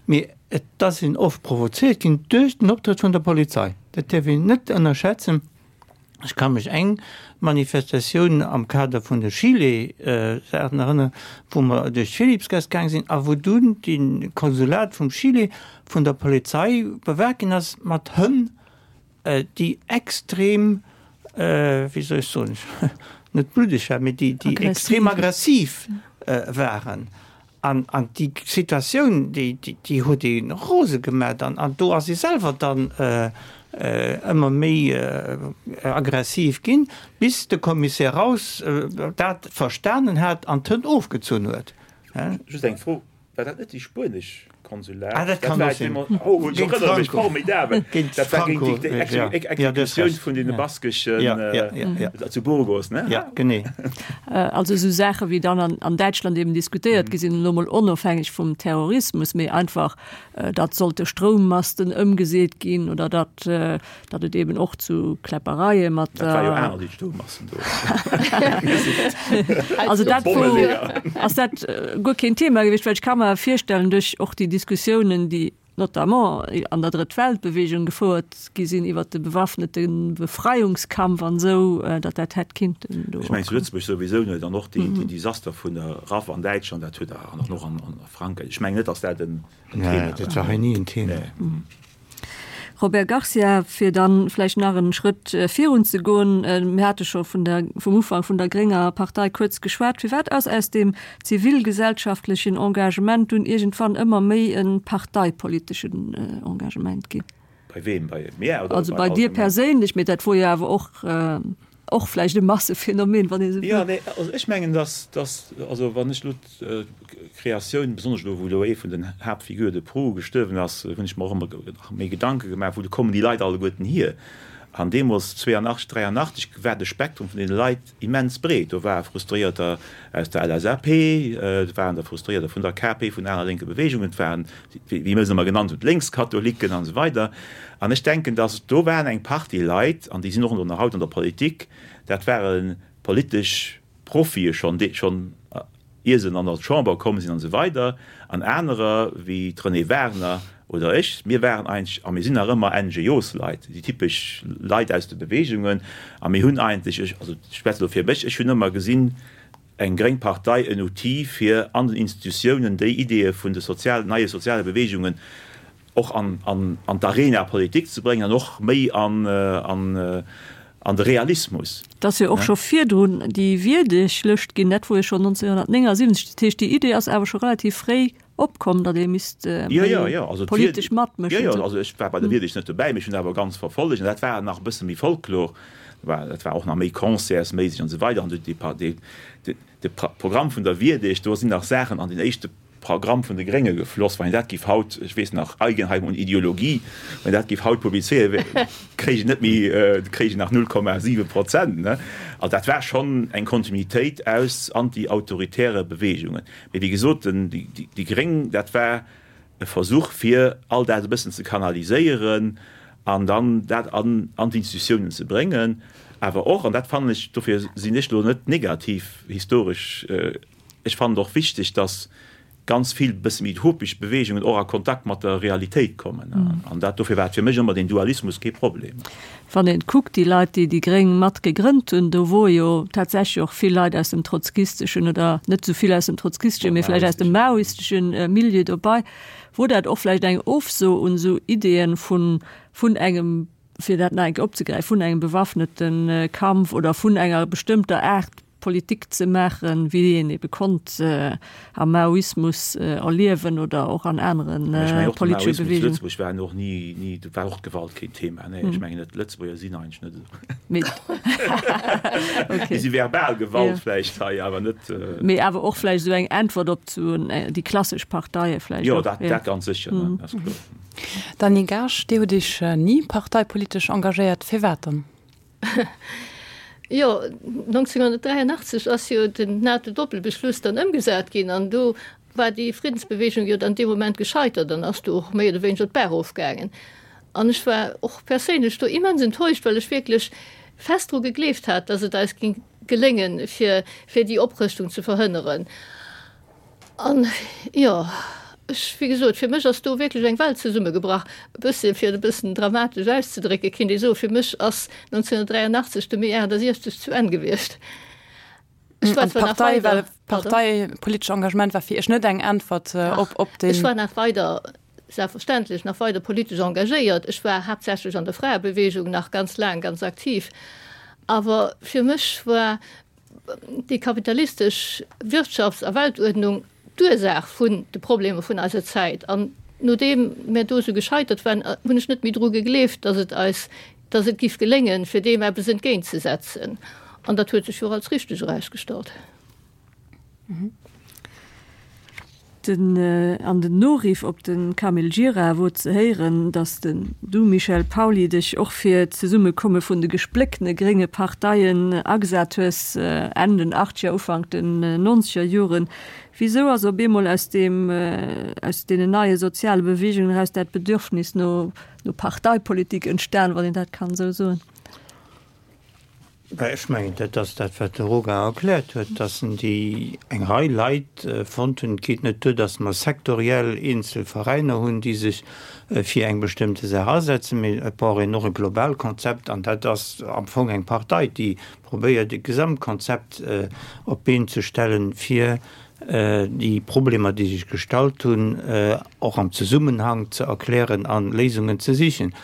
S4: mee et ass een oft provoziert ginn duerch den Optrëtt vun der Polizei. Dat däerf een net ënnerschätzen. Ech ka mech eng Manifestatioun am Kader vun de Chile-Saachen erënneren, wou mer duerch d'Philippsgaass gaang sinn a wou dunn de Konsulat vum Chile vun der Polizei bewaacht ginn ass mat Hënn, déi extrem, wéi soll ech soen, net bluddeg waren, mee déi extrem aggressiv waren. An déi Situatioun, déi huet ee rose gemat. An do ass ee selwer dann ëmmer méi aggressiv ginn, bis de Commissaire Raus dat verstanen hat an d'Hënn ofgezunn huet.
S3: Just eng Fro, War dat net déi spuenesch Konsulat?
S4: Ah, dat kann och sinn.
S3: Oh, ech erënnere mech, formidabel! Dat war géint déi Exekutioun vun deene baskeschen zu Burgos, ne?
S4: Ja, genee.
S1: Also esou Saache wéi dann an, an Däitschland eben diskutéiert gi sinn, elo mol onofhängeg vum Terrorismus, mee einfach, datt sollte Stroummasten ëmgeseet ginn oder datt, datt et eben och zu Kläppereie mat
S3: Dat war jo aner déi Stroummasten do.
S1: Also dat wor, ass dat guer keen Thema gewiescht, well ech ka mer virstellen, duerch och déi Diskussiounen, déi notamment an der Drëtt-Welt-Bewegung gefouert gi sinn iwwert de bewaffnete Befreiungskampf an esou, datt dat hätt kinnten
S3: do. Ech mengen zu Lëtzebuerg souwisou net, an och déi Desaster vun der RAF an Däitschland, dat huet an och an Frankräich, ech mengen net, datt dat en
S4: Thema war. Nee, dat war hei ni en Thema.
S1: Robert Garcia, fir dann vläicht nach en Schrëtt virun ze goen, mir hate scho vun der, vum Ufank vun der grénger Partei kuerz geschwat, firwat ass aus deem zivilgesellschaftlechen Engagement dunn iergendwann ëmmer méi e parteipoliteschen Engagement ginn?
S3: Bei weem? Bei mir
S1: oder Also bei dir perséinlech, mee dat wor jo awer och och vläicht e Massephänomen, wann ee sou
S3: wëll. Jo, nee, also ech mengen, dass, dass, also wann ech elo d'Kreatioun, besonnesch elo wou elo ee vun den Haaptfigure de proue gestuerwen ass, hunn ech mer och ëmmer nach méi Gedanke gemaach, wou kommen déi Leit alleguerten hier? An deemools, 82, 83, war de Spektrum vun deene Leit immens breet. Do ware Frustréierter aus der LSAP, et waren der Frustréierter vun der KP, vun aner lénke Beweegungen, et waren, wéi mir se ëmmer genannt hunn, d'Lénkskatholiken an esou weider. An ech denken, datt do waren eng Partie Leit, an déi sinn och nach haut an der Politik, dat ware politesch Profie schonn, déi schonn ier se an der Chamber komm sinn an esou weider, an anerer wéi d'Renée Wagner oder ech, mir waren eigentlech a mir sinn nach ëmmer NGOs-Leit, déi typesch Leit aus de Beweegungen, a mir hunn eigentlech, ech, also ech schwätze elo fir mech, ech hunn ëmmer gesinn, eng gréng Partei en Outil fir an den Institutiounen déi Ideeë vun de sozial, neie soziale Beweegungen och an, an, an d'Arena politique ze bréngen an och méi an, an, an de Realismus.
S1: Et ass jo och scho virdrun déi Wierdeg-Lëscht ginn, dat wor jo schonn 1979. Dat heescht, déi Idee ass awer scho relativ fréi opkomm, datt ee misst méi politesch matmëschen.
S3: Jo, jo, also ech war bei der Wierdeg net dobäi, mee ech hunn awer ganz verfollegt. An dat war nach e bësse méi Folklor, dat war och nach méi concertsméisseg an esou weider. An de Programm vun der Wierdeg, do sinn nach Saachen an den éischte Programm vun de Grénge gefloss. Wann een dat géif haut, ech weess nach, Eigenheim und Ideologie, wann een dat géif haut publizéieren, kréich een net méi, kréich een nach 0,7 Prozent, ne? Also dat war schonn eng Kontinuitéit aus anti-autoritäre Beweegungen. Mee wéi gesot, den, déi Gréng, dat war e Versuch, fir all dat e bëssen ze kanaliséieren an dann dat an an d'Institutiounen ze bréngen. Awer och, an dat fannen ech, dofir sinn ech elo net negativ historesch, Ech fannen et och wichteg, dass ganz vill bësse méi utopesch Beweegungen och a Kontakt mat der Realitéit kommen. An dat, dofir war et fir mech ëmmer deen Dualismus kee Problem.
S1: Wann een kuckt, déi Leit, déi déi Gréng mat gegrënnt hunn, do wore jo tatsächlech och vill Leit aus dem trotzkisteschen oder net esou vill aus dem trotzkisteschen, mee vläicht aus dem maoisteschen Milieu dobei. Wor dat och vläicht eng Ofso un esou Ideeën vun, vun engem, fir dat nach eng Kéier opzegräifen, vun engem bewaffnete Kampf oder vun enger bestëmmter Aart Politik ze maachen, wéi een ebe konnt am Maoismus erliewen oder och an anere politesche
S3: Beweegungen. Zu Lëtzebuerg war och ni, ni, do war och d'Gewalt keen Thema, nee, ech mengen net, d'Lëtzebuerger sinn eigentlech net esou. Mee okay. Si verbal Gewalt vläicht hei, awer net.
S1: Mee awer och vläicht esou eng Äntwert op zu déi klassesch Parteie vläicht
S3: och. Jo, dat, dat ganz sécher, dat ass kloer.
S2: Dany Gaasch, Dir hutt Iech ni parteipolitesch engagéiert, firwat dann?
S5: Jo, 1983 ass jo den NATO-Doppelbeschluss dann ëmgesat ginn an do war déi Friddensbewegung jo dann dee Moment gescheitert an ass do och méi oder wéineger d'Baach erofgaangen. An ech war och perséinlech do immens enttäuscht, well ech wierklech fest dru gegleeft hat, datt et eis géing geléngen, fir, fir déi Oprëschtung ze verhënneren. An, jo, ech, wéi gesot, fir mech ass do wierklech eng Welt zesummegebrach. E bësse, fir et e bëssen dramatesch auszedrécken, kéint ee soen, fir mech ass 1983 de Mee 68 zu Enn gewiescht.
S2: Ech war zwar nach weider. Parteipolitescht Engagement war fir Iech net eng Äntwert op, op
S5: deen. Ech war nach weider, selbstverständlech, nach weider politesch engagéiert. Ech war haaptsächlech an der Fraebewegung nach ganz laang ganz aktiv. Awer fir mech war déi kapitalistesch Wirtschafts a Weltuerdnung d'Ursaach vun de Problemer vun eiser Zäit. An nodeem mär do esou gescheitert waren, hunn ech net méi dru gegleeft, datt et eis, datt et giff geléngen, fir deem eppes entgéintzesetzen. An dat huet sech jo och als richteg erausgestallt.
S1: Den an den Noriff op de Camille Gira wor ze héieren, datt den du, Michel Pauly, dech och fir d'Zesummekomme vun de gespléckene grénge Parteien agesat hues, Enn den achtzeger, Ufank den nonzeger Joren. Wisou ass op eemol aus deem, aus deenen neie soziale Beweegungen eraus dat Bedürfnis no no Parteipolitik entstan, wann een dat kann esou soen?
S4: Bah, ech mengen, dat ass dat, wat de Roga erkläert huet, dass en déi eng Rei Leit fonnt hunn. Et geet net duer, dass mer sektoriell eenzel Veräiner hunn, déi sech fir eng bestëmmte Saach asetzen, mee et brauch een och e global Konzept. An dat ass am Fong eng Partei, déi probéiert, e Gesamtkonzept op d'Been ze stellen, fir déi Problemer, déi sech gestallt hunn, och am Zesummenhang ze erklären a Léisungen ze sichen.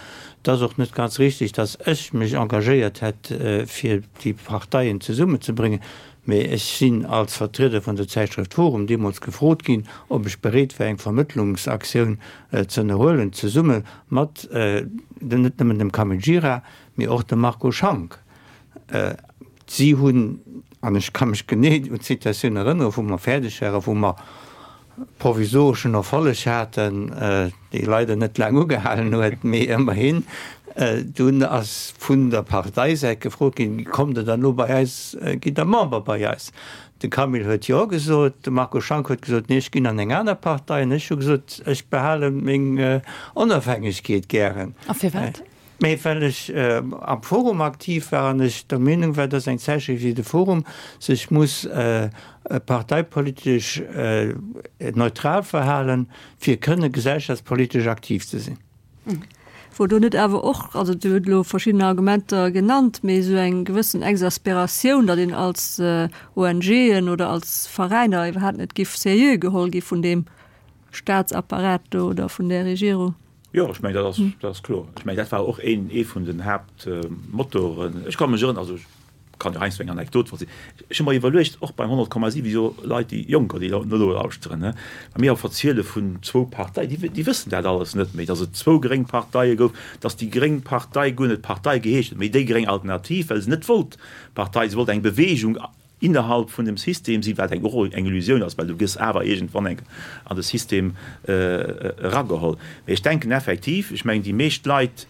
S4: Et ass och net ganz richtig, dass ech mech engagéiert hätt, fir déi Parteien zesummenzebréngen. Mee ech sinn als Vertrieder vun der Zäitschrëft Forum deemools gefrot ginn, ob ech bereet wär, eng Vermëttlungsaktioun ze ënnerhuelen, zesumme mat net nëmmen dem Camille Gira, mee och dem Marco Schank. Si hunn, an ech ka mech genee un d'Situatioun erënneren, wou mer fäerdeg waren, wou mer provisoreschen Erfolleg haten, dee leider net laang ugehalen huet, mee ëmmerhin, dunn ass vun der Parteisäit gefrot ginn, Kommt Der dann elo bei eis, gitt Der Member bei eis? De Camille huet Jo gesot, de Marco Schank huet gesot, Nee, ech ginn an eng aner Partei. An ech hu gesot, Ech behale meng Onofhängegkeet gären.
S2: A firwat?
S4: Mee well ech am Forum aktiv war an ech der Meenung war, dass eng Zäitschrëft wéi de Forum sech muss parteipolitesch neutral verhalen, fir kënne gesellschaftspolitesch aktiv ze sinn.
S1: Wor do net awer och, also Dir hutt elo verschidden Argumenter genannt, mee esou eng gewëssen Exasperatioun, datt een als ONGen oder als Veräiner iwwerhaapt net giff seriö geholl gi vun deem Staatsapparat do oder vun där Regierung?
S3: Jo, ech mengen, dat ass, dat ass kloer. Ech mengen, dat war och een, ee vun den Haaptmotoren. Ech ka mech erënneren, also ech kann jo heiansdo eng Anekdot verzielen. Ech hu mer iwwerluecht, och beim 100,7 jo Leit, déi Jonker, déi elo nolauschteren, ne, wa mir och verziele vun zwou Parteien, déi, déi wëssen dat alles net méi, datt et zwou gréng Parteie gouf, datt déi gréng Partei guer net Partei geheescht huet, mee déi gréng Alternativ, well se net wollt Partei, se wollt eng Bewegung innerhalb vun dem System sinn, wat eng och eng Illusioun ass, well du gëss awer iergendwann eng an de System erageholl. Mee ech denken effektiv, ech mengen déi meescht Leit,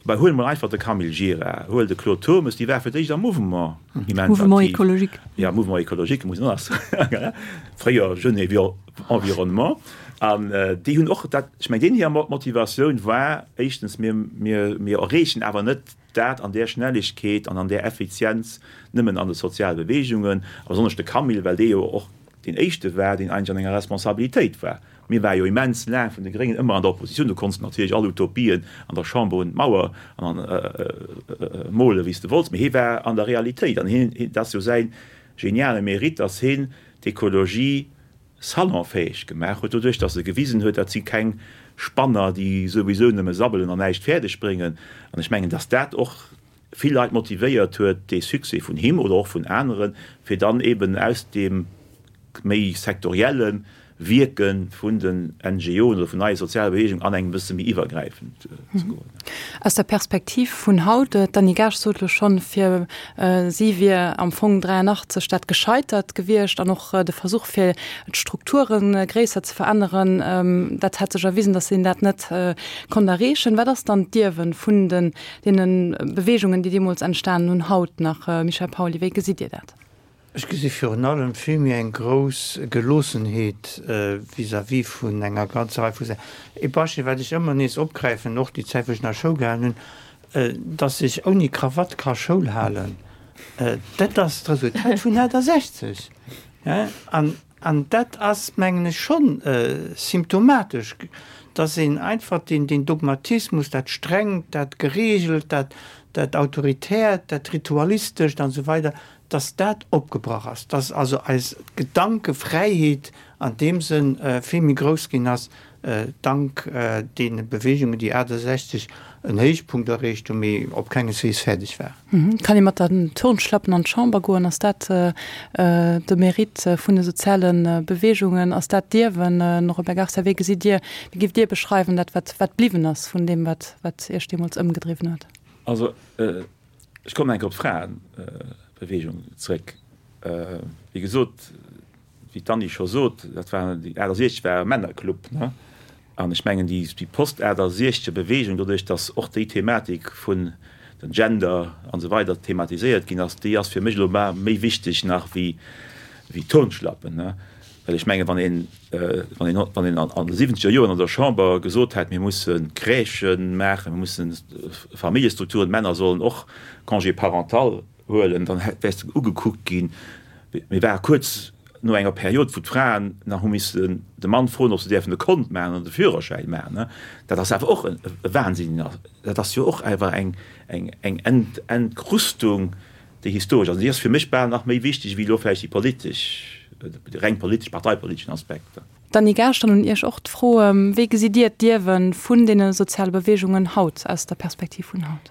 S3: bah huel emol einfach de Camille Gira, huel de Claude Turmes, déi ware fir d'éischt am Mouvement immens aktiv.
S1: Mouvement écologique.
S3: Ja, Mouvement écologique, muss een och nach soen, fréier Jeunes et Environnement. An déi hunn och dat, ech mengen deenen hir Motivatioun war éischtens, mir, mir, mir erreechen awer net Dat an där Schnelligkeet an an där Effizienz nëmmen an de soziale Beweegungen, a besonnesch de Camille, well dee jo och deen éischte war, deen eigentlech an enger Responsabilitéit war. Mir ware jo immens laang vun de Gréngen ëmmer an der Oppositioun, do konns de natierlech all Utopien an der Chamber un d'Mauer molen, wéi s de wollts, mee hie war an der Realitéit an hien, dat ass jo säi geniale Mérite, datt hien d'Ekologie salonfäeg gemaach huet, doduerch datt e gewisen huet, dat si keng Spanner, déi souwisou nëmme sabbelen an näischt fäerdeg bréngen. An ech mengen, datt dat och vill Leit motivéiert huet, dee Succès vun him oder och vun aneren, fir dann eben aus deem méi sektorielle Wierke vun den NGOen oder vun neie soziale Beweegungen an eng e bësse méi iwwergräifend ze goen.
S2: Aus der Perspektiv vun haut, d'Annie Gaasch sot elo schonn, fir Si wier am Fong 83 dat gescheitert gewiescht an och de Versuch fir d'Strukture gréisser ze veränneren, dat hätt sech erwisen, datt een dat net konnt erreechen. Wat ass dann d'Ierwen vun den deene Beweegungen, déi deemools entstanen hunn, haut nach? Michel Pauly, wéi gesitt Dir dat?
S4: Ech gesi virun allem vill méi eng grouss Geloossenheet vis-à-vis vun enger ganzer Rei vu Saachen. Ee Beispill, wat ech ëmmer nees opgräifen, och déi Zäit, wou ech nach Schoul gehalen hunn, Dass ech ouni Krawatt ka Schoul halen, dat ass d'Resultat vun 68. An dat ass, mengen ech, schonn symptomatesch, dass een einfach deen Dogmatismus, dat Strengt, dat Geregelt, dat Autoritärt, dat Ritualistescht an esou weider, dass dat opgebrach ass, dass also eis Gedankefräiheet an deem Sënn vill méi grouss ginn ass, dank deene Beweegungen, déi 68 en Héichpunkt erreecht hunn, mee op kengeswees fäerdeg
S2: waren. Kann ee mat den Turnschlappen an d'Chamber goen? Ass dat de Mérite vun de soziale Beweegungen? Ass dat d'Ierwen? Robert Garcia, wéi gesitt Dir, wéi giff Dir beschreiwen dat, wat bliwwen ass vun deem, wat Iech deemools ëmgedriwwen huet?
S3: Also ech kommen eng Kéier op d'Fraebeweegung zréck. Wéi gesot, wéi d'Anni scho sot, dat war, déi 68 war e Männerclub, ne? An ech mengen, déi, déi Post-68-Bewegung, doduerch datt och déi Thematik vun den Gender an esou weider thematiséiert ginn ass, déi ass fir mech elo méi wichteg nach wéi, wéi d'Turnschlappen, ne? Well ech mengen, wann een, wann een, wann een an de siwwenzeger Joren an der Chamber gesot hätt, mir musse Crèchen maachen, mir mussen Familljestrukturen, d'Männer sollen och Congé parental huelen, dann wäers de ugekuckt ginn. Mir ware kuerz no enger Period, wou d'Fraen nach hu missen de Mann froen, ob se däerfen e Kont maachen an de Führerschäin maachen. Dat ass awer och e Wahnsinn. Dat ass jo och awer eng Entkrustung, déi historesch ass. An déi ass fir mech bal nach méi wichteg wéi elo vläicht déi politesch, déi reng politesch, parteipoliteschen Aspekter.
S2: Dany Gaasch, dann un Iech och d'Fro, Wéi gesitt Dir d'Ierwe vun deene soziale Beweegungen haut, aus der Perspektiv vun haut?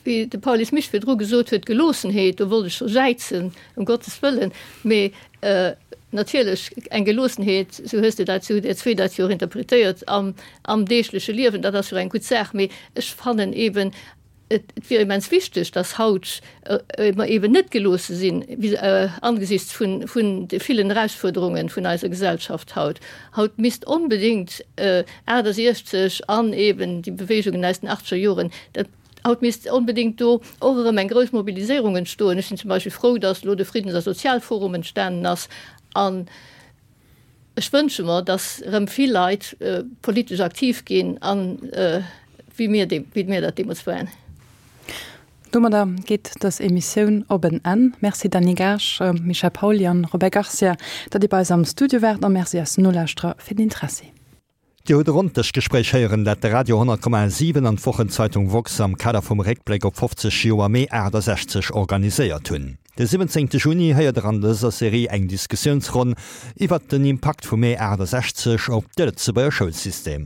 S5: Wéi de Paulus Misch virdru gesot huet, Geloossenheet, do wollt ech scho jäizen, ëm Gottes Wëllen, mee natierlech eng Geloossenheet, sou hues de dat, sou hutt Dir zwee dat jo och interpretéiert, am, am deegleche Liewen, dat ass jo eng gutt Saach, mee ech fannen eeben, et wier immens wichteg, dass haut mer eeben net geloosse sinn angesichts vun, vun de villen Erausfuerderungen vun eiser Gesellschaft haut. Haut misst onbedéngt 68 an eeben déi Bewegungen aus den achtzeger Joren, dat, Haut misst onbedéngt do och erëm eng grouss Mobiliséierung entstoen. Ech sinn zum Beispill frou, datt elo de Friddens a Sozialforum entstanen ass. An ech wënsche mer, datt erëm vill Leit politesch aktiv ginn, an wéi mir, wéi mir dat deemools waren.
S2: Domadder geet dës Emissioun op en Enn. Merci Dany Gaasch, Michel Pauly an Robert Garcia, datt Dir bei eis am Studio waart a Merci eisen Nolauschterer fir den Interessi.
S6: Dir hutt e Ronndëschgespréich héieren, dat de Radio 100,7 an d'Wochenzeitung woxx am Kader vum Réckbléck op 50 Joer Mee 68 organiséiert hunn. De 17 Juni héiert der an dëser Serie eng Diskussiounsronn iwwert den Impakt vum Mee 68 op de Lëtzebuerger Schoulsystem.